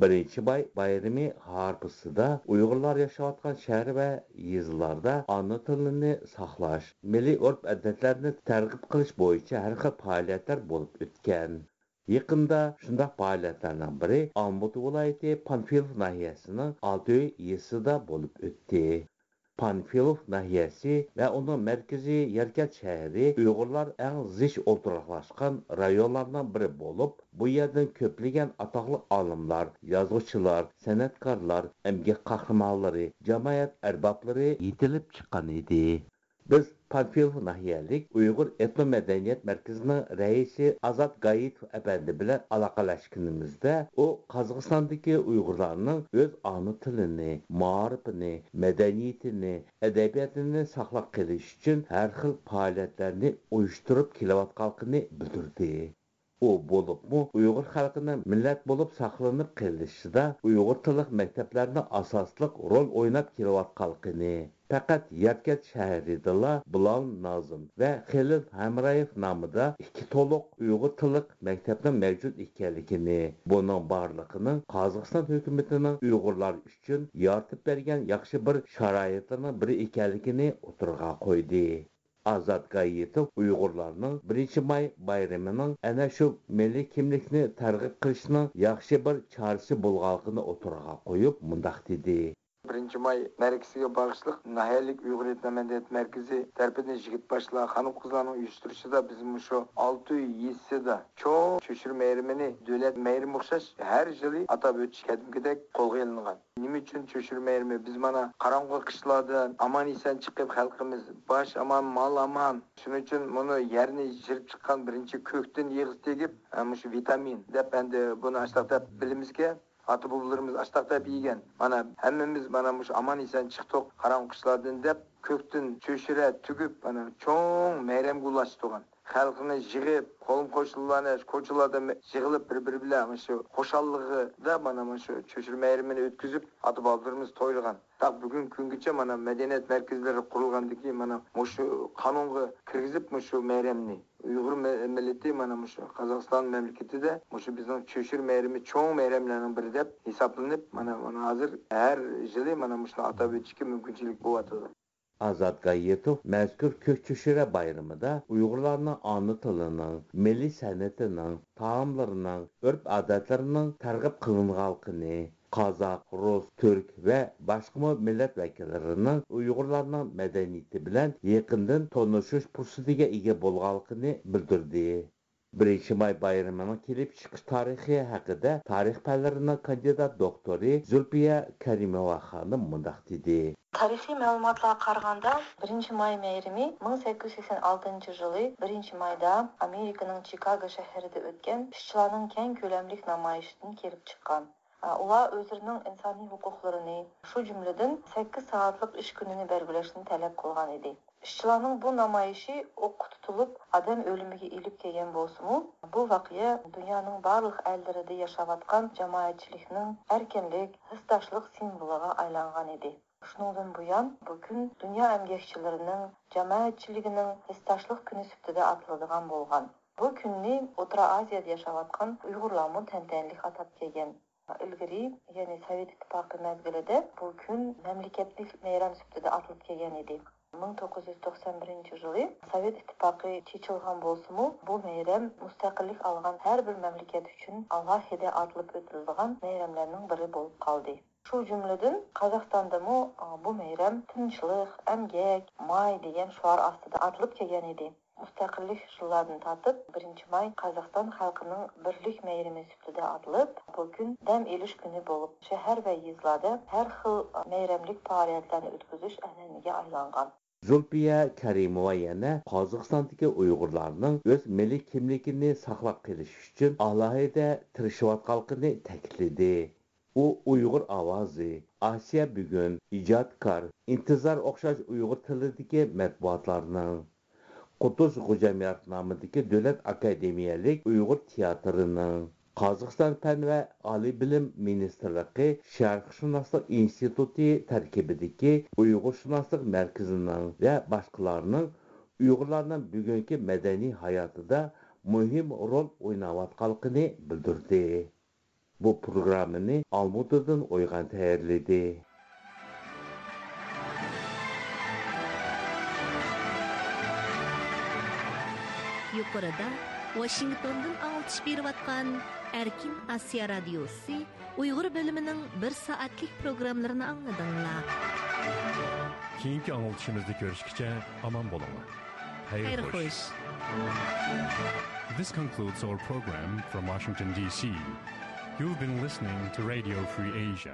بىرىنچى ماي بايرىمى ھارپىسىدا ئۇيغۇرلار ياشاۋاتقان شەھەر ۋە يېزىلاردا ئانا تىلىنى ساقلاش، مىللىي ئۆرپ-ئادەتلەرنى تەرغىب قىلىش بويىچە ھەر خىل پائالىيەتلەر بولۇپ ئۆتكەن. يېقىندا شۇنداق پائالىيەتلەرنىڭ بىرى ئالمۇتا ۋىلايىتى پانفىلوف ناھىيەسىنىڭ ئالتۆي يېزىسىدا بولۇپ ئۆتتى. پانفىلوف ناھىيەسى ۋە ئۇنىڭ مەركىزى ياركەنت شەھىرى ئۇيغۇرلار ئەڭ زىچ ئولتۇراقلاشقان رايونلارنىڭ بىرى بولۇپ، بۇ يەردىن كۆپلىگەن ئاتاقلىق ئالىملار، يازغۇچىلار، سەنئەتكارلار، ئەمگەك قەھرىمانلىرى، جامائەت ئەربابلىرى يېتىلىپ چىققان ئىدى. بىز پانفىلوف ناھىيەلىك ئۇيغۇر ئېتنو مەدەنىيەت مەركىزىنىڭ رەئىسى ئازات گايىتوف ئەپەندى بىلەن ئالاقىلەشكىنىمىزدە، ئۇ قازاقىستاندىكى ئۇيغۇرلارنىڭ ئۆز ئانا تىلىنى، مائارىپىنى، مەدەنىيىتىنى، ئەدەبىياتىنى ساقلاپ قېلىش ئۈچۈن ھەر خىل پائالىيەتلەرنى ئۇيۇشتۇرۇپ كېلىۋاتقانلىقىنى بىلدۈردى. ئۇ بولۇپمۇ ئۇيغۇر خەلقىنىڭ مىللەت بولۇپ ساقلىنىپ قېلىشىدا ئۇيغۇر تىللىق مەكتەپلەرنىڭ ئاساسلىق رول ئويناپ كېلىۋاتقانلىقىنى، پەقەت ياركەنت شەھىرىدىلا بىلال نازىم ۋە خېلىل ھەمرايېف نامىدا ئىككى تولۇق ئۇيغۇر تىللىق مەكتەپنىڭ مەۋجۇت ئىكەنلىكىنى، بۇنىڭ بارلىقىنىڭ قازاقىستان ھۆكۈمىتىنىڭ ئۇيغۇرلار ئۈچۈن يارىتىپ بەرگەن ياخشى بىر شارائىتلىرىنىڭ بىرى ئىكەنلىكىنى ئوتتۇرىغا قويدى. ئازات گايىتوف ئۇيغۇرلارنىڭ بىرىنچى ماي بايرىمىنىڭ ئەنە شۇ مىللىي كىملىكنى تەرغىب قىلىشنىڭ ياخشى بىر چارىسى بولغانلىقىنى ئوتتۇرىغا قويۇپ، مۇنداق دېدى. بىرىنچى ماي مەرىكىسىگە باغىشلىق ناھىيەلىك ئۇيغۇر ئېتنو مەدەنىيەت مەركىزى تەرىپىدىن يىگىت باشلار، خانىم-قىزلارنىڭ ئۇيۇشتۇرۇشىدا بىز مۇشۇ ئالتۆي يېزىسىدا چوڭ چۆچۈرە مەيرىمىنى دۆلەت مەيرىمى ئوخشاش ھەر يىلى ئاتاپ ئۆتۈش قەدىمكىدەك قولغا ئېلىنغان. نېمە ئۈچۈن چۆچۈرە مەيرىمى؟ بىز مانا قاراڭغۇ قىشلاردىن ئامان-ئېسەن چىقىپ، خەلقىمىز باش ئامان، مال ئامان. شۇنىڭ ئۈچۈن مۇنۇ يەرنى يىرىپ چىققان بىرىنچى كۆكتىن يېغىسى تېگىپ، ھە، مۇشۇ ۋىتامىن دەپ، ئەمدى بۇنى ئاشتاق دەپ بىلىمىزكەن. ئاتا-بوۋىلىرىمىز ئاشتاق دەپ يېگەن. مانا ھەممىمىز مانا مۇشۇ ئامان-ئېسەن چىقتۇق قاراڭغۇ قىشلاردىن دەپ، كۆكتىن چۆچۈرە تۈگۈپ، مانا چوڭ مەيرەمگە ئۇلاشتۇرغان. خەلقنى يىغىپ، قولۇم-قوشنىلارنى كوچىلاردا مە-، يىغىلىپ، بىر-بىرى بىلەن مۇشۇ خۇشاللىقىدا مانا مۇشۇ چۆچۈرە مەيرىمىنى ئۆتكۈزۈپ، ئاتا-بابىلىرىمىز تويلىغان. تاق بۈگۈنكى كۈنگىچە مانا مەدەنىيەت مەركەزلىرى قۇرۇلغاندىن كېيىن، مانا مۇشۇ قانۇنغا كىرگۈزۈپ، مۇشۇ مەيرەمنى ئۇيغۇر مە-، مىللىتى مانا مۇشۇ قازاقىستان مەملىكىتىدە مۇشۇ بىزنىڭ چۆچۈرە مەيرىمى چوڭ مەيرەملەرنىڭ بىرى دەپ ھېسابلىنىپ، مانا، مانا ھازىر ھەر يىلى مانا مۇشۇنى ئاتاپ ئۆتۈشكە مۇمكىنچىلىك بولۇۋاتىدۇ. ئازات گايىتوف مەزكۇر كۆك چۆچۈرە بايرىمىدا ئۇيغۇرلارنىڭ ئانا تىلىنىڭ، مىللىي سەنئىتىنىڭ، تائاملىرىنىڭ، ئۆرپ-ئادەتلىرىنىڭ تەرغىب قىلىنغانلىقىنى، قازاق، رۇس، تۈرك ۋە باشقىمۇ مىللەت ۋەكىللىرىنىڭ ئۇيغۇرلارنىڭ مەدەنىيىتى بىلەن يېقىندىن تونۇشۇش پۇرسىتىگە ئىگە بولغانلىقىنى بىلدۈردى. بىرىنچى ماي بايرىمىنىڭ كېلىپ چىقىش تارىخى ھەققىدە تارىخ پەنلىرىنىڭ كاندىدات دوكتورى زۇلپىيە كەرىموۋا خانىم مۇنداق دېدى. تارىخىي مەلۇماتلارغا قارىغاندا، بىرىنچى ماي مەيرىمى مىڭ سەككىز يۈز سەكسەن ئالتىنچى يىلى بىرىنچى مايدا ئامېرىكىنىڭ چىكاگو شەھىرىدە ئۆتكەن ئىشچىلارنىڭ كەڭ كۆلەملىك نامايىشىدىن كېلىپ چىققان. ئۇلار ئۆزلىرىنىڭ ئىنسانىي ھوقۇقلىرىنى، شۇ جۈملىدىن سەككىز سائەتلىك ئىش كۈنىنى بەلگىلەشنى تەلەپ قىلغان ئىدى. ئىشچىلارنىڭ بۇ نامايىشى ئوققا تۇتۇلۇپ، ئادەم ئۆلۈمىگە ئېلىپ كەلگەن بولسىمۇ، بۇ ۋەقە دۇنيانىڭ بارلىق ئەللىرىدە ياشاۋاتقان جامائەتچىلىكنىڭ ئەركىنلىك، ھېسداشلىق سىمۋولىغا ئايلانغان ئىدى. شۇنىڭدىن بۇيان، بۇ كۈن دۇنيا ئەمگەكچىلىرىنىڭ، جامائەتچىلىكىنىڭ ھېسداشلىق كۈنى سۈپىتىدە ئاتىلىدىغان بولغان. بۇ كۈننى ئوتتۇرا ئاسىيادا ياشاۋاتقان ئۇيغۇرلارمۇ تەنتەنىلىك ئاتاپ كەلگەن. ئىلگىرى، يەنى سوۋېت ئىتتىپاقى مەزگىلىدە بۇ كۈن مەملىكەتلىك مەيرەم سۈپىتىدە ئاتىلىپ كەلگەن ئىدى. مىڭ توققۇز يۈز توقسان بىرىنچى يىلى سوۋېت ئىتتىپاقى چېچىلغان بولسىمۇ، بۇ مەيرەم مۇستەقىللىك ئالغان ھەر بىر مەملىكەت ئۈچۈن ئالاھىدە ئاتىلىپ ئۆتۈلىدىغان مەيرەملەرنىڭ بىرى بولۇپ قالدى. شۇ جۈملىدىن قازاقىستاندىمۇ، ئا، بۇ مەيرەم تىنچلىق، ئەمگەك، ماي دېگەن شوئار ئاستىدا ئاتىلىپ كەلگەن ئىدى. مۇستەقىللىك يىللاردىن تارتىپ بىرىنچى ماي قازاقىستان خەلقىنىڭ بىرلىك مەيرىمى سۈپىتىدە ئاتىلىپ، بۇ كۈن دەم ئېلىش كۈنى بولۇپ، شەھەر ۋە يېزىلاردا ھەر خىل مەيرەملىك پائالىيەتلەرنى ئۆتكۈزۈش ئەنئەنىگە ئايلانغان. زۇلپىيە كەرىموۋا يەنە قازاقىستاندىكى ئۇيغۇرلارنىڭ ئۆز مىللىي كىملىكىنى ساقلاپ قېلىش ئۈچۈن ئالاھىدە تىرىشىۋاتقانلىقىنى تەكىتلىدى. ئۇ ئۇيغۇر ئاۋازى، ئاسىيا بۈگۈن، ئىجادكار، ئىنتىزار ئوخشاش ئۇيغۇر تىلىدىكى مەتبۇئاتلارنىڭ، قۇتۇز غوجاميارات نامىدىكى دۆلەت ئاكادېمىيەلىك ئۇيغۇر تىياتىرىنىڭ، قازاقىستان پەن ۋە ئالىي بىلىم مىنىستىرلىقى شەرقشۇناسلىق ئىنستىتۇتى تەركىبىدىكى ئۇيغۇرشۇناسلىق مەركىزىنىڭ ۋە باشقىلارنىڭ ئۇيغۇرلارنىڭ بۈگۈنكى مەدەنىي ھاياتىدا مۇھىم رول ئويناۋاتقانلىقىنى بىلدۈردى. بۇ پروگراممىنى ئالمۇتىدىن ئويغان تەييارلىدى. يۇقىرىدا ۋاشىنگتوندىن ئاڭلىتىش بېرىۋاتقان ئەركىن ئاسىيا رادىيوسى ئۇيغۇر بۆلۈمىنىڭ بىر سائەتلىك پروگراممىلىرىنى ئاڭلىدىڭلار. كېيىنكى ئاڭلىتىشىمىزدا كۆرۈشكىچە ئامان بولۇڭلار. خەير خوش. This concludes our program from Washington, D C. You've been listening to Radio Free Asia.